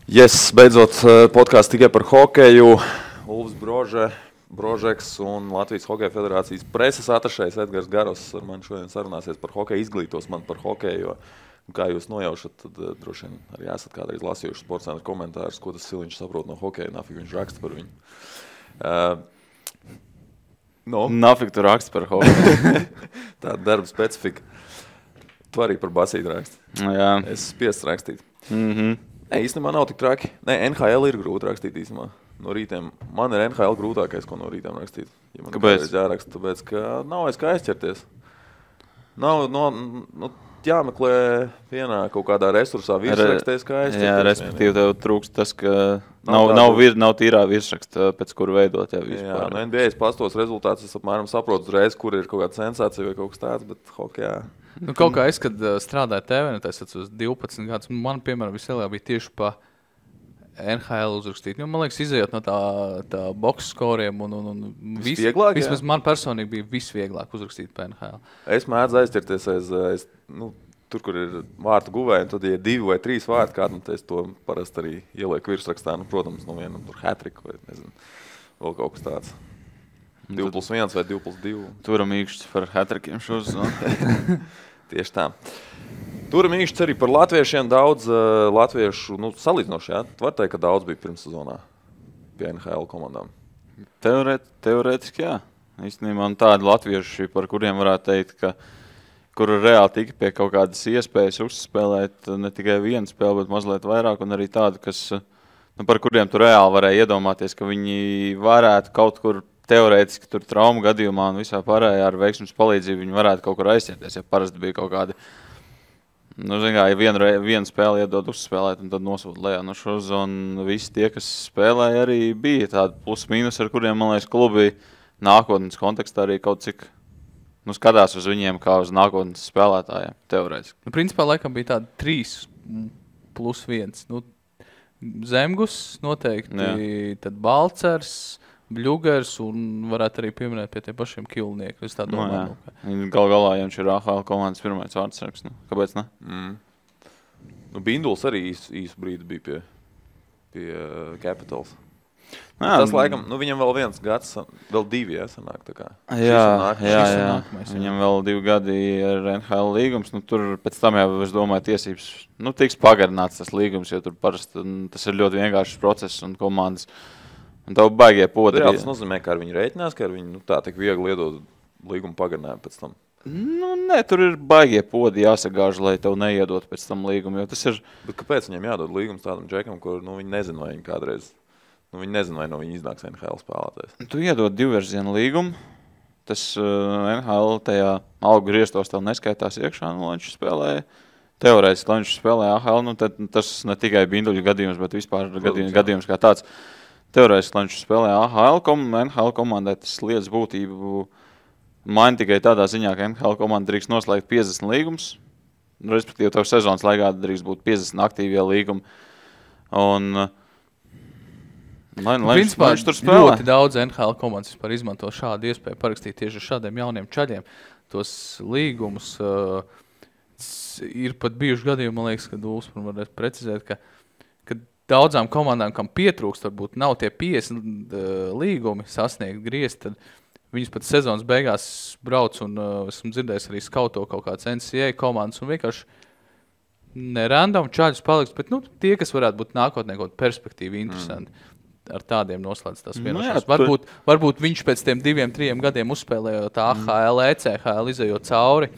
Yes, beidzot podkāsts tikai par hokeju. Ulvis Brožeks un Latvijas Hokeja federācijas preses atašējs Edgars Garos ar mani šodien sarunāsies par hokeju, izglītos man par hokeju. Jo, kā jūs nojaušat, tad droši vien arī esat kādreiz lasījuši sportcentra komentārus, ko tas Siliņš saprot no hokeja, nafik viņš raksta par viņu. Nafik tu raksta par hokeju. Tāda darba specifika. Tu arī par basīti raksti. Jā. Es spiests rakstīt. Mhm. Nē, īstenībā nav tik traki. Nē, NHL ir grūti rakstīt īstenībā. No rītiem. Man ir NHL grūtākais, ko no rītiem rakstīt. Ja man Kāpēc? Jāraksta, tāpēc, ka nav aiz kā aizķerties. Nav, jāmeklē vienā kaut kādā resursā virsrakstēs, kā aizķerties. Jā, respektīvi tev trūkst tas, ka Nav nav tīrā virsraksta, pēc kuru veidot. Jā, no NBA pastos rezultātus es apmēram saprotu uzreiz, kur ir kaut kāda sensācija vai kaut kas tāds, bet hokejā. Kaut kā es, kad strādāju TV, es atceros 12 gadus, man, piemēram, vislielākā bija tieši pa NHL uzrakstīt. Man liekas, izējot no tā box skoriem un Visvieglāk, vismaz man personīgi bija visvieglāk uzrakstīt pa NHL. Es mēdzu aizķerties aiz tur, kur ir vārtu guvēji, un tad, ja 2 vai 3 vārti kādu, tad es to parasti arī ielieku virsrakstā. Protams, no viena tur hat-trick vai nezinu, vēl kaut kas tāds. 2+1 vai 2+2. Turam īkšķis par hat-trickiem šos. Tieši tā. Turam īkšķis arī par latviešiem. Daudz latviešu, salīdzinoši, jā. Var teikt, ka daudz bija pirmssezonā pie NHL komandām. Teorētiski, jā. Īstenībā man tādi latvieši, par kuriem varētu teikt, ka kuru reāli tika pie kaut kādas iespējas uzspēlēt ne tikai vienu spēli, bet mazliet vairāk, un arī tādu, kas, par kuriem tu reāli varēja iedomāties, ka viņi varētu kaut kur teorētiski tur traumu gadījumā un visā pārējā ar veiksmes palīdzību viņi varētu kaut kur aizķerties, ja parasti bija kaut kādi, ja vienu spēli iedod uzspēlēt un tad nosūt lejā no šos, un visi tie, kas spēlēja, arī bija tādi plus-mínus, ar kuriem, man liekas, klubi nākotnes kontekstā arī kaut cik skatās uz viņiem kā uz nākotnes spēlētājiem, teorētiski. Principā, laikam bija tādi 3+1. Zemgus noteikti, jā. Tad Balcers, Bļugers un varētu arī pieminēt pie tiem pašiem Kilnieku. Es tā domāju. Galā, ja viņš ir AHL komandas pirmais vārdsargs. Kāpēc ne? Binduls arī īsu brīdi bija pie Capitals. Tas laikam, viņam vēl viens gads, vēl 2, sanāk tā kā. Jā. Viņam vēl 2 gadi ar NHL līgums. Tur pēc tam jau, es domāju, tiesības tiks pagarināts tas līgums, jo tur parasti tas ir ļoti vienkāršs process un komandas. Un tev baigie podi. Tas nozīmē, ka ar viņu rēķinās, ka ar viņu tā tik viegli iedod līgumu pagarinājumu pēc tam. Nē, tur ir baigie podi jāsagāž, lai tev neiedot pēc tam līgumu, jo tas ir... Bet kāpēc viņam jādod līgums tādam džekam, kur viņi nezina, vai viņi kādreiz... viņi nezina, vai no viņa iznāks NHL spēlētājs. Tu iedod 2-virzienu līgumu, tas NHL tajā algu griestos tev neskaitās iekšā, lai viņš spēlēja. Teorētiski, lai viņš spēlēja AHL, tad tas ne tikai Binduļu gadījums, bet vispār gadījums kā tāds. Teorētiski, lai viņš spēlēja AHL NHL komandai, tas lietas būtību maina tikai tādā ziņā, ka NHL komanda drīkst noslēgt 50 līgumus, respektīvi tev sezonas laikā drīkst būt 50 aktīvie līgumi. Un principā ļoti daudz NHL komandas vispār izmanto šādu iespēju parakstīt tieši ar šādiem jauniem čaļiem. Tos līgumus ir pat bijuši gadījumi, man liekas, kad Ulfs varētu precizēt, ka daudzām komandām, kam pietrūkst, varbūt nav tie 50 līgumi sasniegt griezt, tad viņas pat sezonas beigās brauc un esmu dzirdējis arī skauto kaut kāds NCAA komandas un vienkārši nerandom čaļus paliks, bet tie, kas varētu būt nākotnē kaut perspektīvi interesanti, ar tādiem noslēdz tās vienošanās. Varbūt viņš pēc tiem 2-3 gadiem uzspēlējot AHL, ECHL, izējot cauri,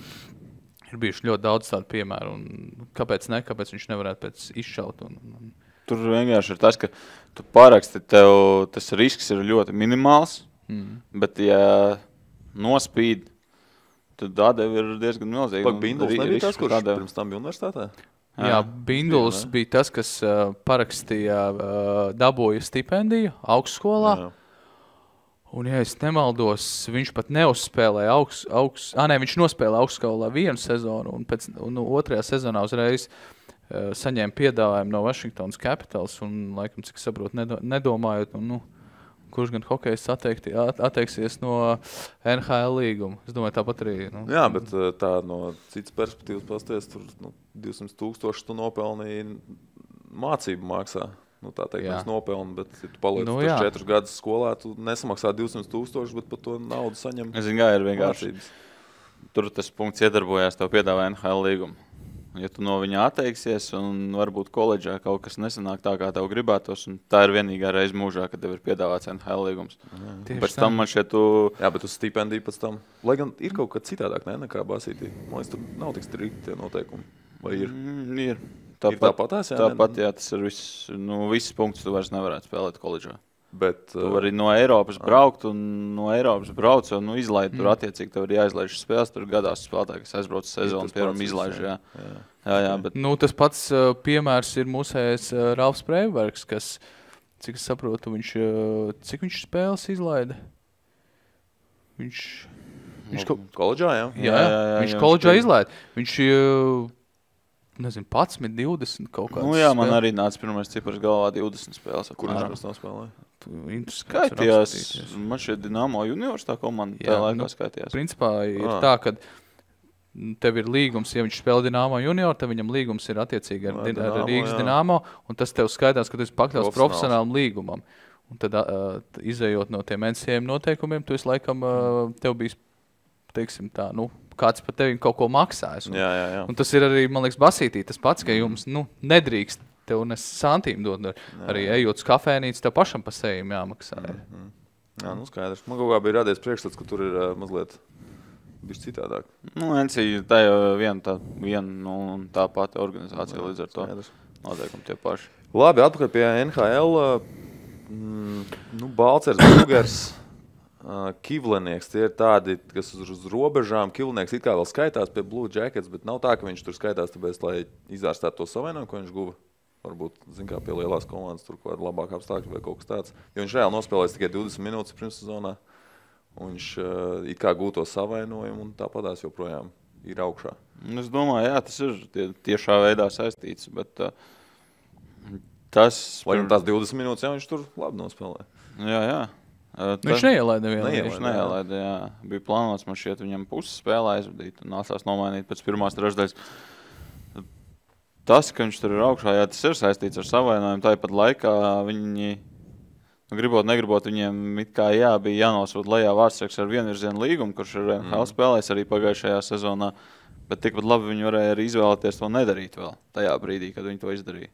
ir bijuši ļoti daudz tādu piemēru un kāpēc viņš nevarētu pēc izšaut Tur vienkārši ir tas, ka tu paraksti, tev tas risks ir ļoti minimāls, bet ja nospīd, tad atdeve ir diezgan milzīga. Binduls nebija tas, kurš pirms tam bija universitātē? Jā, Binduls bija tas, kas parakstīja, dabūja stipendiju augstskolā. Un, ja es nemaldos, viņš pat neuzspēlēja viņš nospēlēja augstskolā 1 sezonu un otrajā sezonā uzreiz saņēma piedāvājumu no Washingtonas Capitals un, laikam, cik saprotu, nedomājot, kurš gan hokejs atteiksies no NHL līguma. Es domāju, tāpat arī... Jā, bet tā no citas perspektīvas pasties, tur 200,000 tu nopelnīji mācību maksā. Tā teikt, mēs nopelnām, bet, ja tu paliec 4 gadus skolā, tu nesamaksā 200,000, bet par to naudu saņem. Es zinu, kā ir vienkārši. Tur tas punkts iedarbojās, tev piedāvā NHL līgumu. Ja tu no viņa atteiksies un varbūt koledžā kaut kas nesanāk tā, kā tev gribētos, un tā ir vienīgā reize mūžā, kad tev ir piedāvāts NHL līgums. Pēc tam man šeit Jā, bet uz stipendiju pēc tam. Lai gan ir kaut kas citādāk, nekā basītī. Man liekas, tur nav tik strikti tie noteikumi. Vai ir? Ir. Tāpatās, jā? Tāpat, jā, tas ir viss punkts, tu vairs nevarētu spēlēt koledžā. Bet, tu vari no Eiropas braukt un no Eiropas brauc un izlaid tur attiecīgi, tev ir jāizlaiž spēles, tur gadās spēlētāji, kas aizbrauc sezonu, piemēram, izlaiž, jā, bet... Tas pats piemērs ir mūsējais Ralfs Freibergs, kas, cik es saprotu, cik viņš spēles izlaida? Viņš koledžā, jā? Jā, viņš koledžā izlaida. Viņš... Nezinu, 11, 20 kaut kāds. Jā, man arī nāca pirmais cipars galvā 20 spēles. Kur viņš nav spēlēja? Skaitījās, man šeit Dinamo juniors tā komanda tajā laikā skaitījās. Principā ir tā, ka tev ir līgums, ja viņš spēlē Dinamo junior, tad viņam līgums ir attiecīgi ar Rīgas Dinamo, un tas tev skaitās, ka tu esi pakļauts profesionālam līgumam. Un tad, izējot no tiem NCAA noteikumiem, tu esi laikam, tev bijis, teiksim tā, kāds par tevi kaut ko maksājas. Un tas ir arī, man liekas, basītī tas pats, ka jums nedrīkst tev nes santīm dod. Arī ejot uz kafēnīcu, tev pašam pa sejiem jāmaksā. Jā, skaidrs. Man kaut kā bija radies priekšstats, ka tur ir mazliet bišķi citādāk. NCAA tā jau viena tā pati organizācija līdz ar to. Noteikumi tie paši. Labi, atpakaļ pie NHL. Balcers, Brugers, Kivlenieks, tie ir tādi, kas uz robežām. Kivlenieks it kā vēl skaitās pie Blue Jackets, bet nav tā, ka viņš tur skaitās, tāpēc, lai izārstātu to savainojumu, ko viņš guva. Varbūt, kā pie lielās komandas tur kaut kāda labāka apstākļa vai kaut kas tāds. Jo viņš reāli nospēlēs tikai 20 minūtes pirmssezonā. Un viņš it kā gūto savainojumu un tāpatās joprojām ir augšā. Es domāju, jā, tas ir tiešā veidā saistīts, bet tas... Lai tās 20 minūtes, jā, viņš tur labi nospēlē. Jā. Viņš neielaida vienu. Viņš neielaida, jā. Bija plānots, man šķiet, viņam puses spēlē aizvadīt un nācās nomainīt pēc pirmās trešdaļas. Tas, ka viņš tur ir augšā, jā, tas ir saistīts ar savainojumu. Tāpat laikā viņi, negribot, viņiem it kā bija jānosūt lejā vārdsargs ar vienvirzienu līgumu, kurš ir NHL spēlējis arī pagājušajā sezonā, bet tikpat labi viņi varēja arī izvēlēties to nedarīt vēl tajā brīdī, kad viņi to izdarīja.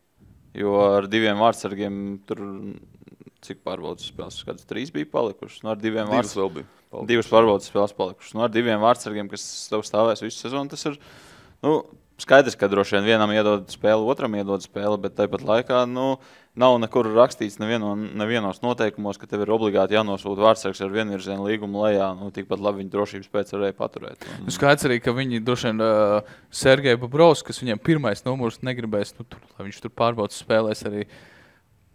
Jo ar diviem vārdsargiem tur... Cik pārbaudas spēles? Kādas 3 bija palikušas? Ar diviem divas pārbaudas spēles palikušas. Ar diviem vārdsargiem, kas tev stāvēs visu sezonu, tas ir skaidrs, ka droši vien vienam iedod spēli, otram iedod spēli, bet tāpat laikā nav nekur rakstīts nevienos noteikumos, ka tev ir obligāti jānosūta vārdsargs ar vienvirzienu līgumu lejā. Tikpat labi viņi drošības pēc varēja paturēt. Skaidrs arī, ka viņi droši vien Sergeja Bobrovs, kas viņam pirmais numurs negribēs, lai viņš tur pārbaudas spēlēs arī.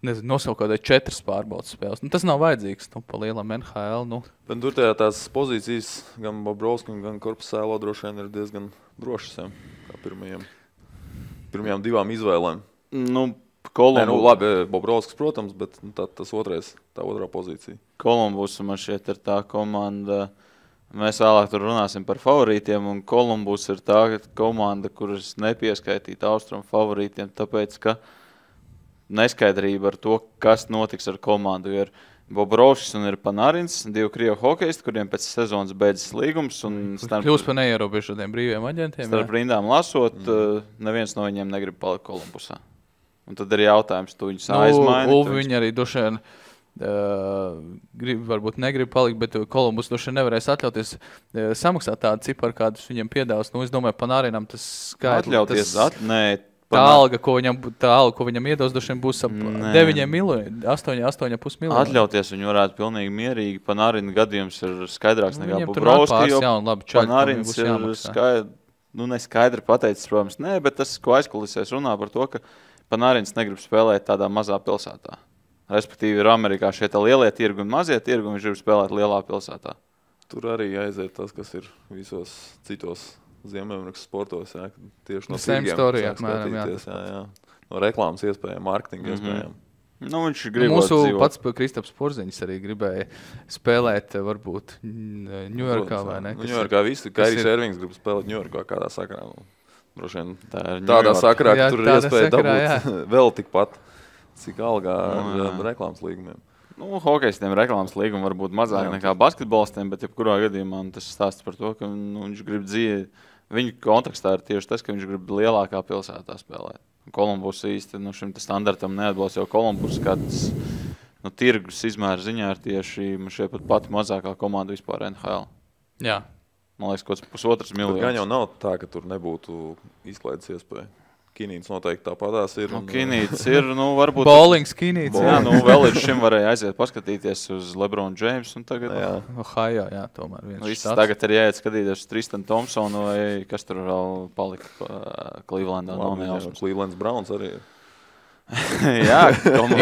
Nosaukt kādai 4 pārbaudas spēles. Tas nav vajadzīgs pa lielam NHL. Bet tur tās pozīcijas gan Bobrovskim, gan Korpusēlo droši vien ir diezgan drošas, kā pirmajām 2 izvēlēm. Labi, Bobrovskis, protams, bet tā otrā pozīcija. Kolumbus man šeit ir tā komanda. Mēs vēlāk tur runāsim par favorītiem, un Kolumbus ir tā komanda, kuras nepieskaitīt austrumu favorītiem, tāpēc, ka neskaidrība ar to, kas notiks ar komandu. Ir Bobrovskis un ir Panarins, 2 krievu hokejisti, kuriem pēc sezonas beidzas līgums. Kļūst par neierobežotiem brīviem aģentiem. Starp rindām lasot, neviens no viņiem negrib palikt Kolumbusā. Un tad ir jautājums, tu viņus aizmaini. Viņi arī droši vien negrib palikt, bet Kolumbus droši vien nevarēs atļauties samaksāt tādu ciparu, kādus viņiem piedāvās. Es domāju, Panarinam tas skaidrs. Tā alga, ko viņam iedos, droši vien būs ap 9 miljoni, 8,5 miljoni. Atļauties viņu varētu pilnīgi mierīgi. Panarina gadījums ir skaidrāks nekā Bobrovski, jo Panarins ir neskaidri pateicis, protams, bet tas, ko aizkulisēs runā par to, ka Panarins negrib spēlēt tādā mazā pilsētā. Respektīvi ir Amerikā šie lielie tirgi un mazie tirgi, un viņš grib spēlēt lielā pilsētā. Tur arī aiziet tas, kas ir visos citos Ziemeļamerikas sportos, tieši no tirgiem skatīties, no reklāmas iespējām, mārketinga iespējām. Viņš grib mūsu pats Kristaps Porziņš arī gribēja spēlēt varbūt Ņujorkā vai ne? Ņujorkā visi, Kairijs Ervings grib spēlēt Ņujorkā kādā sakarā. Droši vien Tā ir tādā Ņujorka. sakarā, ka Jā, tur ir tādā iespēja sakarā, dabūt vēl tikpat, cik algā jā. ar reklāmas līgumiem. Nu, hokejistiem reklāmas līguma var būt mazāk Jā. nekā basketbolistiem, bet jebkurā gadījumā tas stāsts par to, ka viņš grib dzīvi. Viņa kontekstā ir tieši tas, ka viņš grib lielākā pilsētā spēlēt. Kolumbus īsti šim standartam neatbilst, jo Kolumbus kāds tirgus izmēra ziņā ir tieši šie pat pati mazākā komanda vispār NHL. Jā. Man liekas, kaut kāds 1,5 miljonus. Gan jau nav tā, ka tur nebūtu izklaides iespēja. Kinīts noteikti tāpatās ir. Kinīts ir, varbūt... Bowlings Kinīts. Jā, vēl līdz šim varēja aiziet paskatīties uz LeBron James un tagad... Jā. Ohio, jā, tomēr viens štāds. Tagad ir jāiet skatīties uz Tristan Thompsonu vai kas tur vēl palika Clevelandā. Clevelands Browns arī ir. Jā,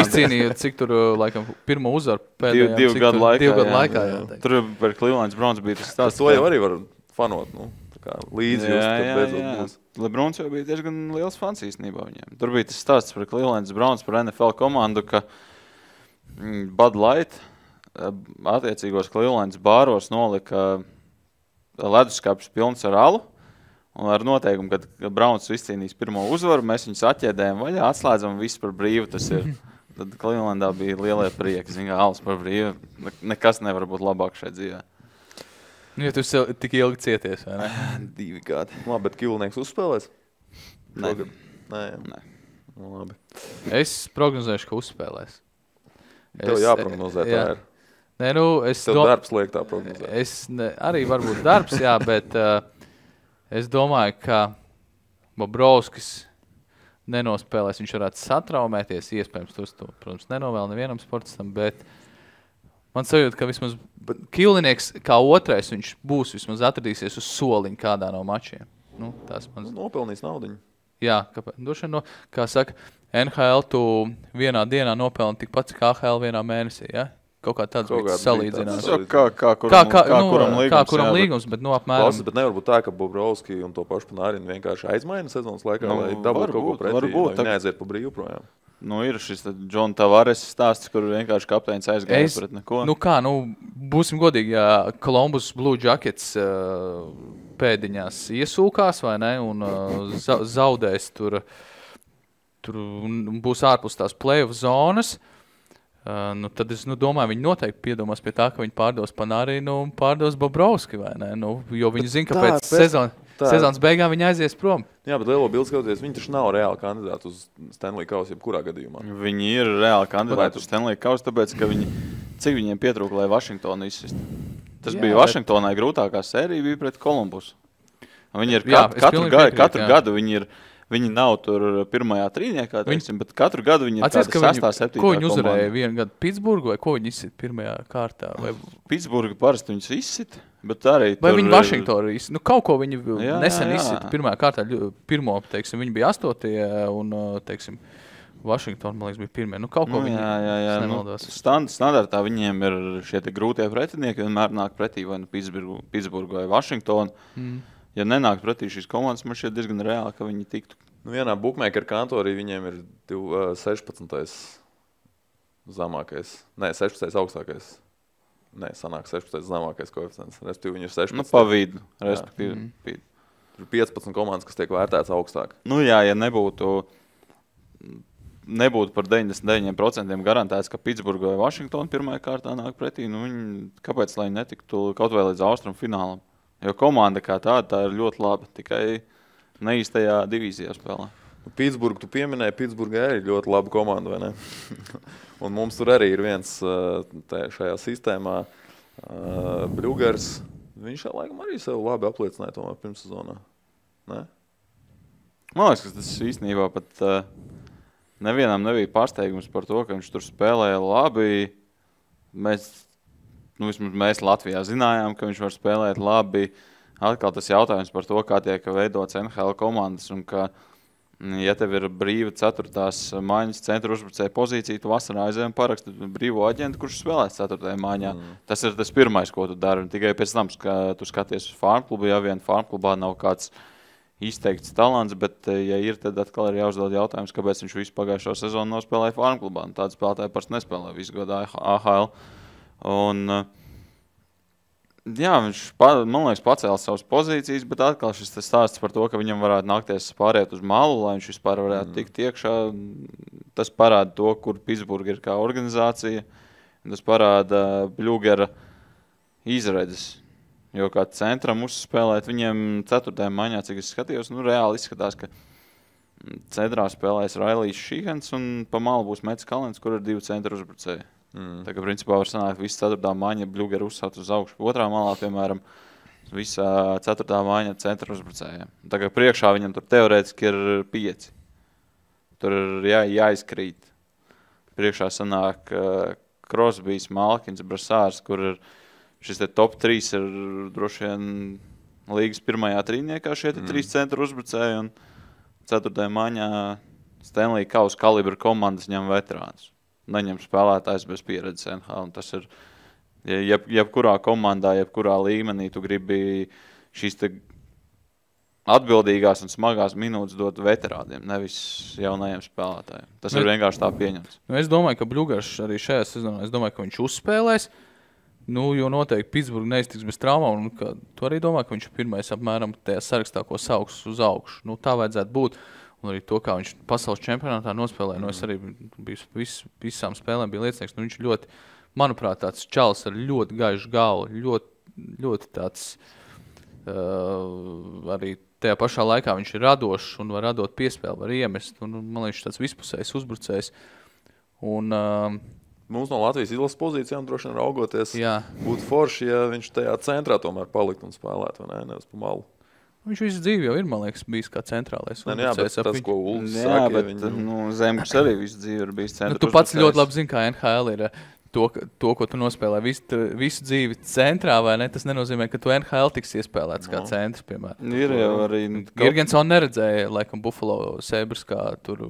izcīnīja, cik tur, laikam, pirmo uzvaru pēdējām. Divu gadu laikā. Jā. Tur par Clevelands Browns bija tas stāsts. To jau arī var fanot, līdzi jūs, kad beidzot būs. Lebrons jau bija diezgan liels fans īstenībā viņiem. Tur bija tas stāsts par Clevelands Browns, par NFL komandu, ka Bud Light attiecīgos Clevelands bāros nolika leduskapis pilns ar alu. Un ar noteikumu, kad Browns izcīnīs pirmo uzvaru, mēs viņus atķēdējam vaļā, atslēdzam visu par brīvu. Tas ir. Tad Clevelandā bija lielie prieki. Zin, alas par brīvu. Nekas nevar būt labāk šeit dzīvē. Nu, ja tu tik ilgi cieties, vai ne? 2 gadi. Labi, bet Kilnieks uzspēlēs? Nē. Nē. Nu, labi. Es prognozēšu, ka uzspēlēs. Tev jāprognozē, tā ir. Nē, Tev darbs liek tā prognozēt. Arī varbūt darbs, jā, bet es domāju, ka Bobrovskis nenospēlēs. Viņš varētu satraumēties, iespējams, to, protams, nenovēl nevienam sportistam, bet man sajūta, ka vismaz Kilnieks kā otrais viņš būs, vismaz atradīsies uz soliņa kādā no mačiem. Nopelnīs naudiņu. Jā, kāpēc? Kā saka, NHL tu vienā dienā nopelni tikpat kā AHL vienā mēnesī, ja? Kaut kā tāds bija salīdzinājums. Kā kuram līgums, bet apmēram. Klausies, bet nevar būt tā, ka Bobrovski un to pašu Panārinu vienkārši aizmaina sezonas laikā, lai dabūt kaut ko pretī, lai viņi neaiziet pa brīvu projām. Ir šis John Tavares stāsts, kur vienkārši kapteinis aizgāja pret neko. Būsim godīgi, ja Columbus Blue Jackets pēdiņās iesūkās, vai ne, un zaudēs tur būs ārpus tās play-off zonas, tad es domāju, viņi noteikti piedomās pie tā, ka viņi pārdos Panārinu un pārdos Bobrovski, vai ne, jo viņi zina, ka pēc sezonas beigām viņi aizies prom. Jā, bet lielo bildi skatoties, viņi taču nav reāli kandidāti uz Stanley Kausu jebkurā gadījumā. Viņi ir reāli kandidāti uz Stanley Kausu, tāpēc, ka cik viņiem pietrūka, lai Vašingtonu izsist. Tas bija Vašingtonai grūtākā sērija bija pret Kolumbusu. Viņi ir katru gadu viņi nav tur pirmajā trīniekā, bet katru gadu viņi ir tāda 6. 7. Ko viņi uzvarēja vienu gadu? Pitsburgu vai ko viņi izsit pirmajā kārtā? Pitsburgu parasti viņus izsit, bet arī vai viņi Vašingtonu izsit? Kaut ko viņi nesen izsit pirmajā kārtā. Pirmo, viņi bija 8. un, Vašingtona, man liekas, bija pirmie. Kaut ko viņi nemaldos. Standartā viņiem ir šie grūtie pretinieki, vienmēr nāk pretī vai Pitsburgu vai Vašingtonu. Ja nenāk pretī šīs komandas, man šķiet diezgan reāli, ka viņi tiktu. Vienā bookmaker kantorī viņiem ir 16. zemākais. Nē, 16. augstākais. Nē, sanāk 16. zemākais koeficients. Respektīvi, viņi ir 16. Pa vidu, respektīvi. Ir 15 komandas, kas tiek vērtēts augstāk. Jā, ja nebūtu par 99% garantēts, ka Pitsburga vai Vašingtona pirmajā kārtā nāk pretī, kāpēc, lai netiktu kaut vai līdz austrumu finālam? Jo komanda kā tā ir ļoti laba, tikai neīstajā divīzijā spēlē. Pitsburgu tu pieminēji, Pitsburga arī ļoti laba komanda, vai ne? Un mums tur arī ir viens šajā sistēmā Bļugars. Viņš laikam arī sev labi apliecināja tomēr pirmssezonā. Ne? Man liekas, ka tas īstenībā pat nevienam nebija pārsteigums par to, ka viņš tur spēlēja labi. Mēs Latvijā zinājām, ka viņš var spēlēt labi. Atkal tas jautājums par to, kā tiek veidots NHL komandas un ka, ja tev ir brīva 4. maiņas centra uzbrucēja pozīcija, tu vasarā aizējām parakstu brīvo aģentu, kurš spēlēs 4. maiņā. Tas ir tas pirmais, ko tu dari. Tikai pēc tam, ka tu skaties uz farmklubu, ja vien farmklubā nav kāds izteikts talants, bet ja ir, tad atkal ir jāuzdod jautājums, kāpēc viņš visu pagājušo sezonu nospēlēja farmklubā. Tāda spēlētāja parasti nespēlē visu gadu AHL. Un Jā, viņš, man liekas, pacēla savas pozīcijas, bet atkal šis stāsts par to, ka viņam varētu nākties pāriet uz malu, lai viņš vispār varētu tikt iekšā. Tas parāda to, kur Pitsburga ir kā organizācija. Tas parāda Bļūgera izredzes. Jo kā centram uzspēlēt, viņiem 4. maiņā, cik es skatījos, reāli izskatās, ka centrā spēlēs Railijs Šihens un pa malu būs Mets Kalens, kur ir 2 centra uzbrucēji. Tā kā principā var sanākt visu 4. maiņa Bļūgera uzsākt uz augšu. Otrā malā, piemēram, visā 4. maiņa centra uzbrucējiem. Tā kā priekšā viņam tur teorētiski ir 5. Tur ir jāizkrīt. Priekšā sanāk Crosbys, Malkins, Brasārs, kur ir šis te top 3 ir droši vien līgas pirmajā trīniekā šie 3 centra uzbrucēji un 4. maiņā Stanley Kausa kalibra komandas ņem veterānus. Neņem spēlētājs bez pieredzes NHL. Un tas ir, jebkurā komandā, jebkurā līmenī tu gribi šīs te atbildīgās un smagās minūtes dot veterādiem, nevis jaunajiem spēlētājiem. Tas ir vienkārši tā pieņemts. Es domāju, ka Bļūgers arī šajā sezonā, ka viņš uzspēlēs, jo noteikti Pitsburga neiztiks bez traumām, un tu arī domā, ka viņš ir pirmais apmēram tajā sarakstā, ko sauks uz augšu. Tā vajadzētu būt. Un arī to, kā viņš pasaules čempionātā nospēlēja. Es arī visām spēlēm biju liecinieks. Viņš ļoti, manuprāt, tāds čalis ar ļoti gaišu galvu, ļoti tāds arī tajā pašā laikā viņš ir radošs un var radot piespēli, var iemest. Un, man liekas, tāds vispusējs uzbrucējs. Un, mums no Latvijas izlases pozīcijām droši vien raugoties būtu forši, ja viņš tajā centrā tomēr palikt un spēlēt, vai ne, nevis pa malu. Viņš visu dzīvi jau ir, man liekas, bijis kā centrālais. Jā, bet tas, ko Ulfs saka, viņu... Zemgus arī visu dzīvi ir bijis centra. Tu pats ļoti labi zini, kā NHL ir to, ko tu nospēlē visu dzīvi centrā, vai ne? Tas nenozīmē, ka tu NHL tiks iespēlēts kā centrs, piemēram. Ir jau arī... Girgensons neredzēja, laikam, Buffalo Sabres kā tur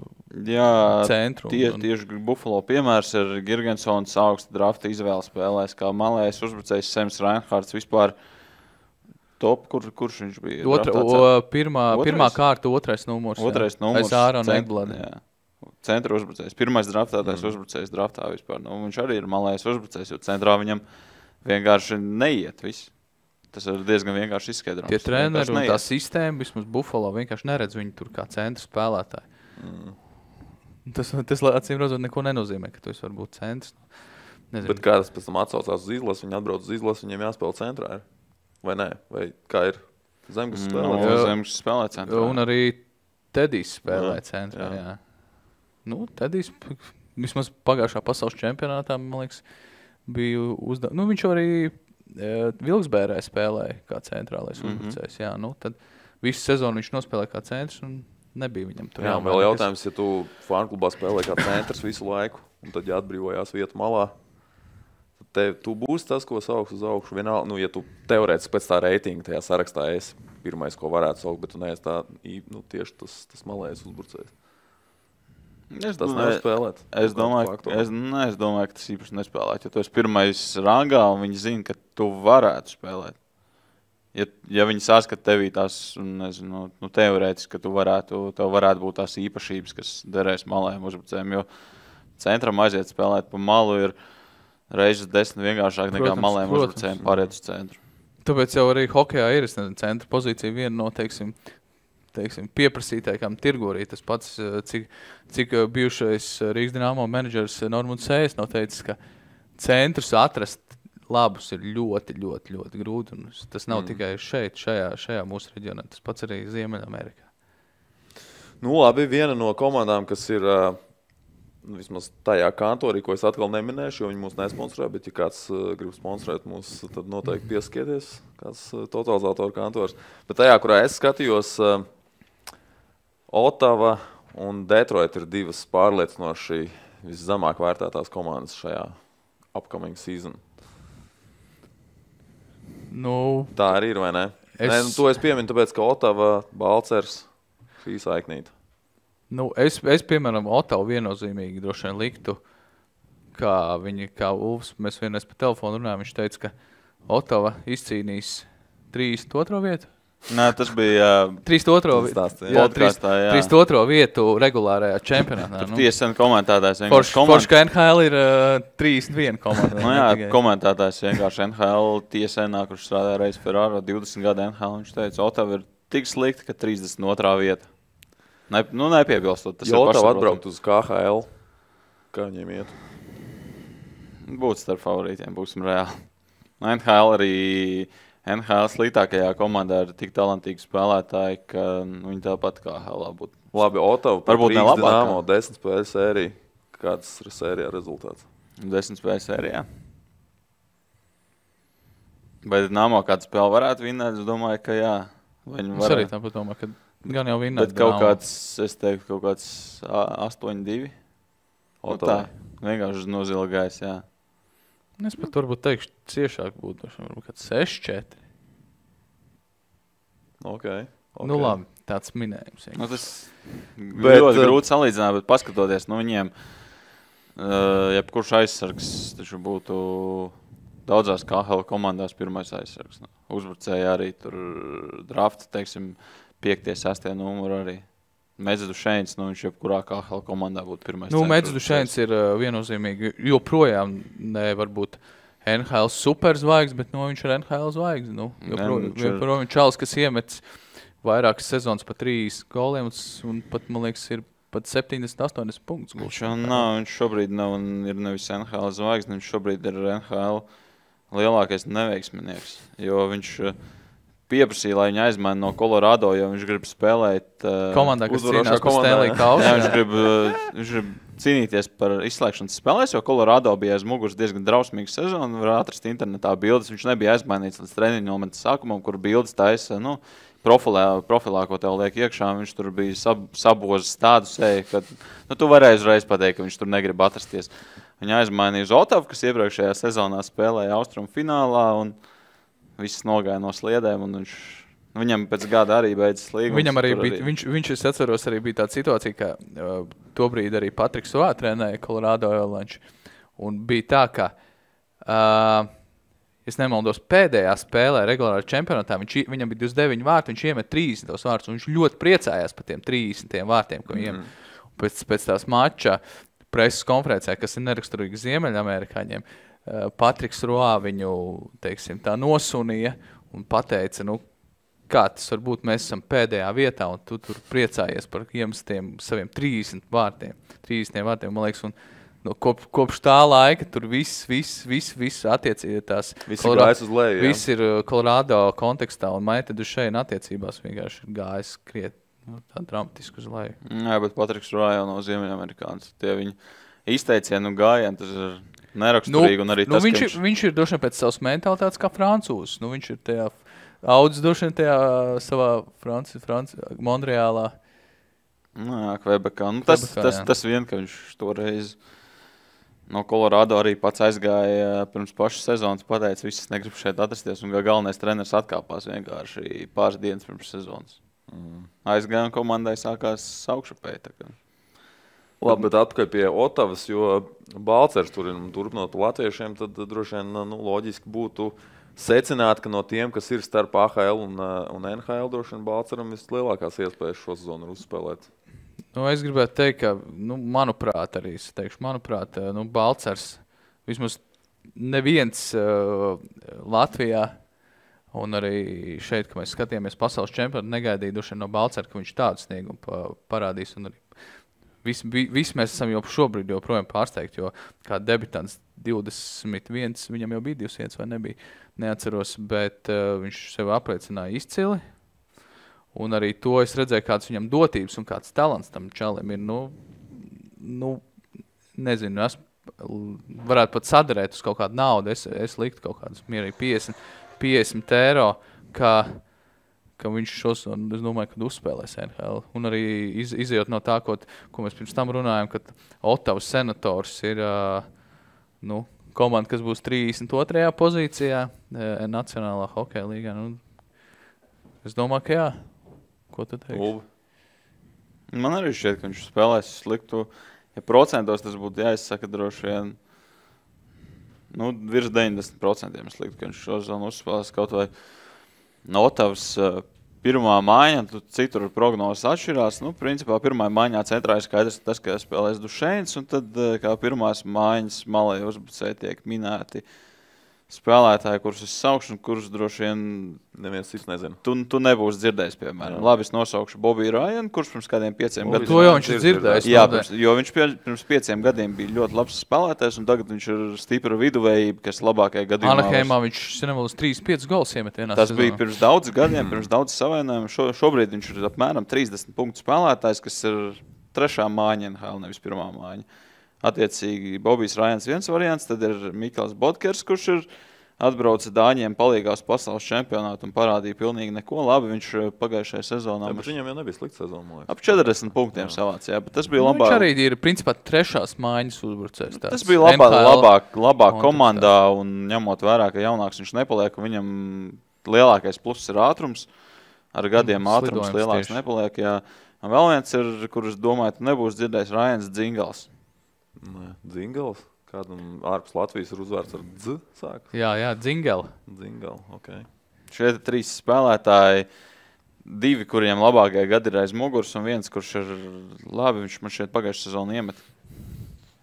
centru. Tieši Buffalo piemērs ir Girgensons augsta drafta izvēle spēlēs, kā malējais uzbrucējs Sems Reinhards vispār... Top, kurš viņš bija? Pirmā kārta, otrais numurs. Aiz Ārona Ekblada. Centra uzbrucējs. Pirmais draftātais uzbrucējs draftā vispār. Viņš arī ir malējais uzbrucējs, jo centrā viņam vienkārši neiet viss. Tas ir diezgan vienkārši izskaidrojums. Tie treneri un tā sistēma, vismaz Buffalo, vienkārši neredz viņu tur kā centra spēlētāji. Tas acīm redzot neko nenozīmē, ka tu esi varbūt centrs. Nezinu. Bet kā tas pēc tam atsaucās uz izlasi, viņi atbrauc uz izlasi, viņiem jāspēlē centrā. Vai nē? Vai kā ir Zemgus spēlē? Zemgus spēlē centrā. Un arī Tedijs spēlē centrā, jā. Tedijs vismaz pagājušā pasaules čempionātā, man liekas, bija viņš arī Vilksbērē spēlēja kā centrālais uzbrucējs, jā. Tad visu sezonu viņš nospēlēja kā centrs un nebija viņam tur. Jā, vēl jautājums, ja tu fārnklubā spēlē kā centrs visu laiku, un tad jāatbrīvojās vietu malā, tu būsi tas, ko sauks uz augšu. Vienalga, ja tu teorētiski pēc tā reitinga tajā sarakstā esi pirmais, ko varētu saukt, bet tu neesi tā, tieši tas malējais uzbrucējs. Tas nevar spēlēt. Es domāju, ka tas īpaši nespēlēt. Ja tu esi pirmais rangā un viņi zina, ka tu varētu spēlēt. Ja viņi saskat tevī tās, nezinu, teorētiski, ka tev varētu būt tās īpašības, kas derēs malējiem uzbrucējiem, jo centram aiziet spēlēt pa malu ir reizes 10 vienkāršāk nekā malējiem uzbrucējiem pāriet uz centru. Tāpēc jau arī hokejā ir centra pozīcija viena no, teiksim, pieprasītākām tirgu arī. Tas pats, cik bijušais Rīgas Dinamo menedžers Normunds Sējs nav teicis, ka centrus atrast labus ir ļoti, ļoti, ļoti grūti. Un tas nav tikai šeit, šajā mūsu reģionā. Tas pats arī Ziemeļamerikā. Labi, viena no komandām, kas ir... vismaz tajā kantorī, ko es atkal neminēšu, jo viņi mūs nesponsorē, bet ja kāds grib sponsorēt mūs, tad noteikti pieskieties, kāds totalizatoru kantors. Bet tajā, kurā es skatījos, Otava un Detroit ir divas pārliecinoši viszemāk vērtētās komandas šajā upcoming season. Tā arī ir, vai ne? To es pieminu, tāpēc, ka Otava, Balcers, šī saiknīta. Es piemēram, Otavu viennozīmīgi droši vien liktu, kā Ulfs, mēs vienreiz pa telefonu runājam, viņš teica, ka Otava izcīnīs 32. vietu. Nē, tas bija 32. vietu regulārajā čempionātā. Tur tiesen komentētājs Forši, ka NHL ir 31 komanda. Komentētājs vienkārši NHL tiesēnā, kurš strādāja reiz Ferraro 20 gadu NHL. Viņš teica, Otava ir tik slikti, ka 32. vieta. Nepiebilstot. Jo Otava atbraukt uz KHL. Kā viņiem iet? Būtu starp favorītiem, būsim reāli. NHL sliktākajā komandā ir tik talantīgi spēlētāji, ka viņi tāpat kā HL būtu. Labi, Otava par Rīgas Dinamo 10 spēļu sēriju. Kāds ir sērijā rezultāts? 10 spēļu sērijā. Vai Dinamo kādu spēli varētu vinnēt? Es domāju, ka jā. Es arī tāpat domāju, ka gan jau vinnēt. Bet kaut kāds, es teiktu, kaut kāds 8-2. Tā, vienkārši nozilgājis, jā. Es pat varbūt teikšu, ciešāk būtu, varbūt kāds 6-4. Okay. Nu labi, tāds minējums. Tas ļoti grūti salīdzināt, bet paskatoties, viņiem, jebkurš aizsargs taču būtu daudzās KHL komandās pirmais aizsargs. Uzbrucēja arī tur drafta, teiksim, 5. 6. numuru arī. Medzudušēns, viņš jebkurā KHL komandā būtu pirmais. Medzudušēns ir viennozīmīgi, joprojām varbūt NHL superzvaigznes, bet viņš ir NHL zvaigznes. Joprojām čalis, kas iemets vairākas sezonas pa 3 goliem un pat, man liekas, ir pat 70-80 punktus. Viņš šobrīd ir nevis NHL zvaigznes, viņš šobrīd ir NHL lielākais neveiksminieks, jo viņš pieprasīja, lai viņu aizmaina no Colorado, jo viņš grib spēlēt komandā, kas cīnās par Stanley Kausu. Viņš grib cīnīties par izslēgšanas spēlēs, jo Colorado bija aiz muguras diezgan drausmīga sezona. Var atrast internetā bildes. Viņš nebija aizmainīts līdz treniņu momenta sākumam, kur bildes taisa, profilā, ko tev liek iekšā. Viņš tur bija sabozis tādu seju, ka tu varēji uzreiz pateikt, ka viņš tur negrib atrasties. Viņa aizmainīja uz Otavu, kas iepriekšējā sezonā spēlēja Austrumu finālā un viss nogāja no sliedēm, un viņam pēc gada arī beidzas līgums. Viņam arī bija, viņš es atceros, arī bija tāda situācija, ka tobrīd arī Patriks Roā trenēja Colorado Avalanche, un bija tā, ka, es nemaldos, pēdējā spēlē regulārā čempionātā, viņam bija 29 vārti, viņš iemet 30 vārtus, un viņš ļoti priecājās par tiem 30 vārtiem, ko viņiem pēc tās mača preses konferencē, kas ir neraksturīgi Ziemeļamerikāņiem, Patriks Roā viņu, teiksim, tā nosunīja un pateica, kā tas varbūt mēs esam pēdējā vietā un tu tur priecājies par iemestiem saviem 30 vārtiem, man liekas, un kopš tā laika tur viss attiecīgi tās. Viss ir gājis uz leju, jā. Viss ir Colorado kontekstā un Maite Dušeina attiecībās vienkārši ir gājis tā dramatiski uz leju. Jā, bet Patriks Roā jau no Ziemeļamerikāns. Tie viņi izteicienu gājieni, tas ir neraksturīgi, un arī tas, viņš ir droši vien pēc savas mentalitātes kā francūzs. Viņš ir tajā audzis droši vien tajā savā Montreālā. Kvebekā. Tas vien, ka viņš toreiz no Colorado arī pats aizgāja pirms pašas sezonas, pateica, viss negrib šeit atrasties, un galvenais treneris atkāpās vienkārši pāris dienas pirms sezonas. Aizgāja un komandai sākās augšupēji. Labi, bet atpakaļ pie Otavas, jo Balcers turpinot latviešiem, tad droši vien loģiski būtu secināt, ka no tiem, kas ir starp AHL un NHL, droši vien Balceram vislielākās iespējas šo sezonu uzspēlēt. Es gribētu teikt, ka, manuprāt, Balcers vismaz neviens Latvijā un arī šeit, ka mēs skatījāmies pasaules čempionātu, negaidīja droši vien no Balcera, ka viņš tādu sniegumu parādīs un arī Visi mēs esam jau šobrīd joprojām pārsteigti, jo kā debitants 21, viņam jau bija 200 vai nebija, neatceros, bet viņš sev apliecināja izcili. Un arī to es redzēju, kāds viņam dotības un kāds talants tam čalim ir. Nezinu, es varētu pat sadarēt uz kaut kādu naudu. Es liktu kaut kādus mierīgi 50 eiro, ka viņš šos, un es domāju, kad uzspēlēs NHL. Un arī izejot no tā, ko mēs pirms tam runājam, ka Ottavas Senators ir komanda, kas būs 32. pozīcijā Nacionālā hokeja līgā. Es domāju, ka jā. Ko tu teiksi? Man arī šķiet, ka viņš spēlēs sliktu. Ja procentos tas būtu jāizsaka droši vien, virs 90% es liktu, ka viņš šo zonu uzspēlēs kaut vai no Ottavas pirmā maiņa, citur prognozes atšķirās. Principā pirmā maiņā centrā ir skaidrs tas, ka spēlēs Dušeins, un tad kā pirmās maiņas malai uzbrucēji tiek minēti spēlētāji, kurus es saukšu, un kurus droši vien neviens cits nezina. Tu nebūsi dzirdējis, piemēram. Labi, es nosaukšu Bobiju Rajanu, kurš pirms kādiem 5 gadiem... To jau viņš ir dzirdējis. Jā, jo viņš pirms 5 gadiem bija ļoti labs spēlētājs, un tagad viņš ir stipra viduvējība, kas labākajā gadījumā... Anaheimā viņš nevēlas 3-5 gols iemet vienā Tas bija pirms daudz gadiem, pirms daudz savainājumiem. Šobrīd viņš ir apmēram 30 punktu spēlētājs, kas ir 3. mājiņa NHL, nevis 1. mājiņa. Attiecīgi, Bobijs Rajans viens variants, tad ir Mikls Bodkers, kurš ir atbrauca Dāņiem palīgās pasaules čempionātu un parādīja pilnīgi neko. Labi, viņš pagājušajā sezonā... Bet viņam jau nebija slikta sezona, man liekas. Ap 40 punktiem savāc, jā, bet tas bija labāk. Viņš arī ir, principā, 3. mājiņas uzbrucējs. Tas bija labāk komandā un ņemot vērā, ka jaunāks viņš nepaliek, un viņam lielākais pluss ir ātrums. Ar gadiem ātrums lielāks nepaliek, jā. Un vēl viens ir, kurus domāju, tu nebūs dzirdējis, Rajans Dzingals. Nē, Dzingals? Kādam ārpus Latvijas ir uzvārds ar dz sākas? Jā, Dzingala. Dzingala, ok. Šie 3 spēlētāji, 2, kuriem labākie gadi ir aiz muguras, un viens, kurš ir labi, viņš man šeit pagājušajā sezonā iemet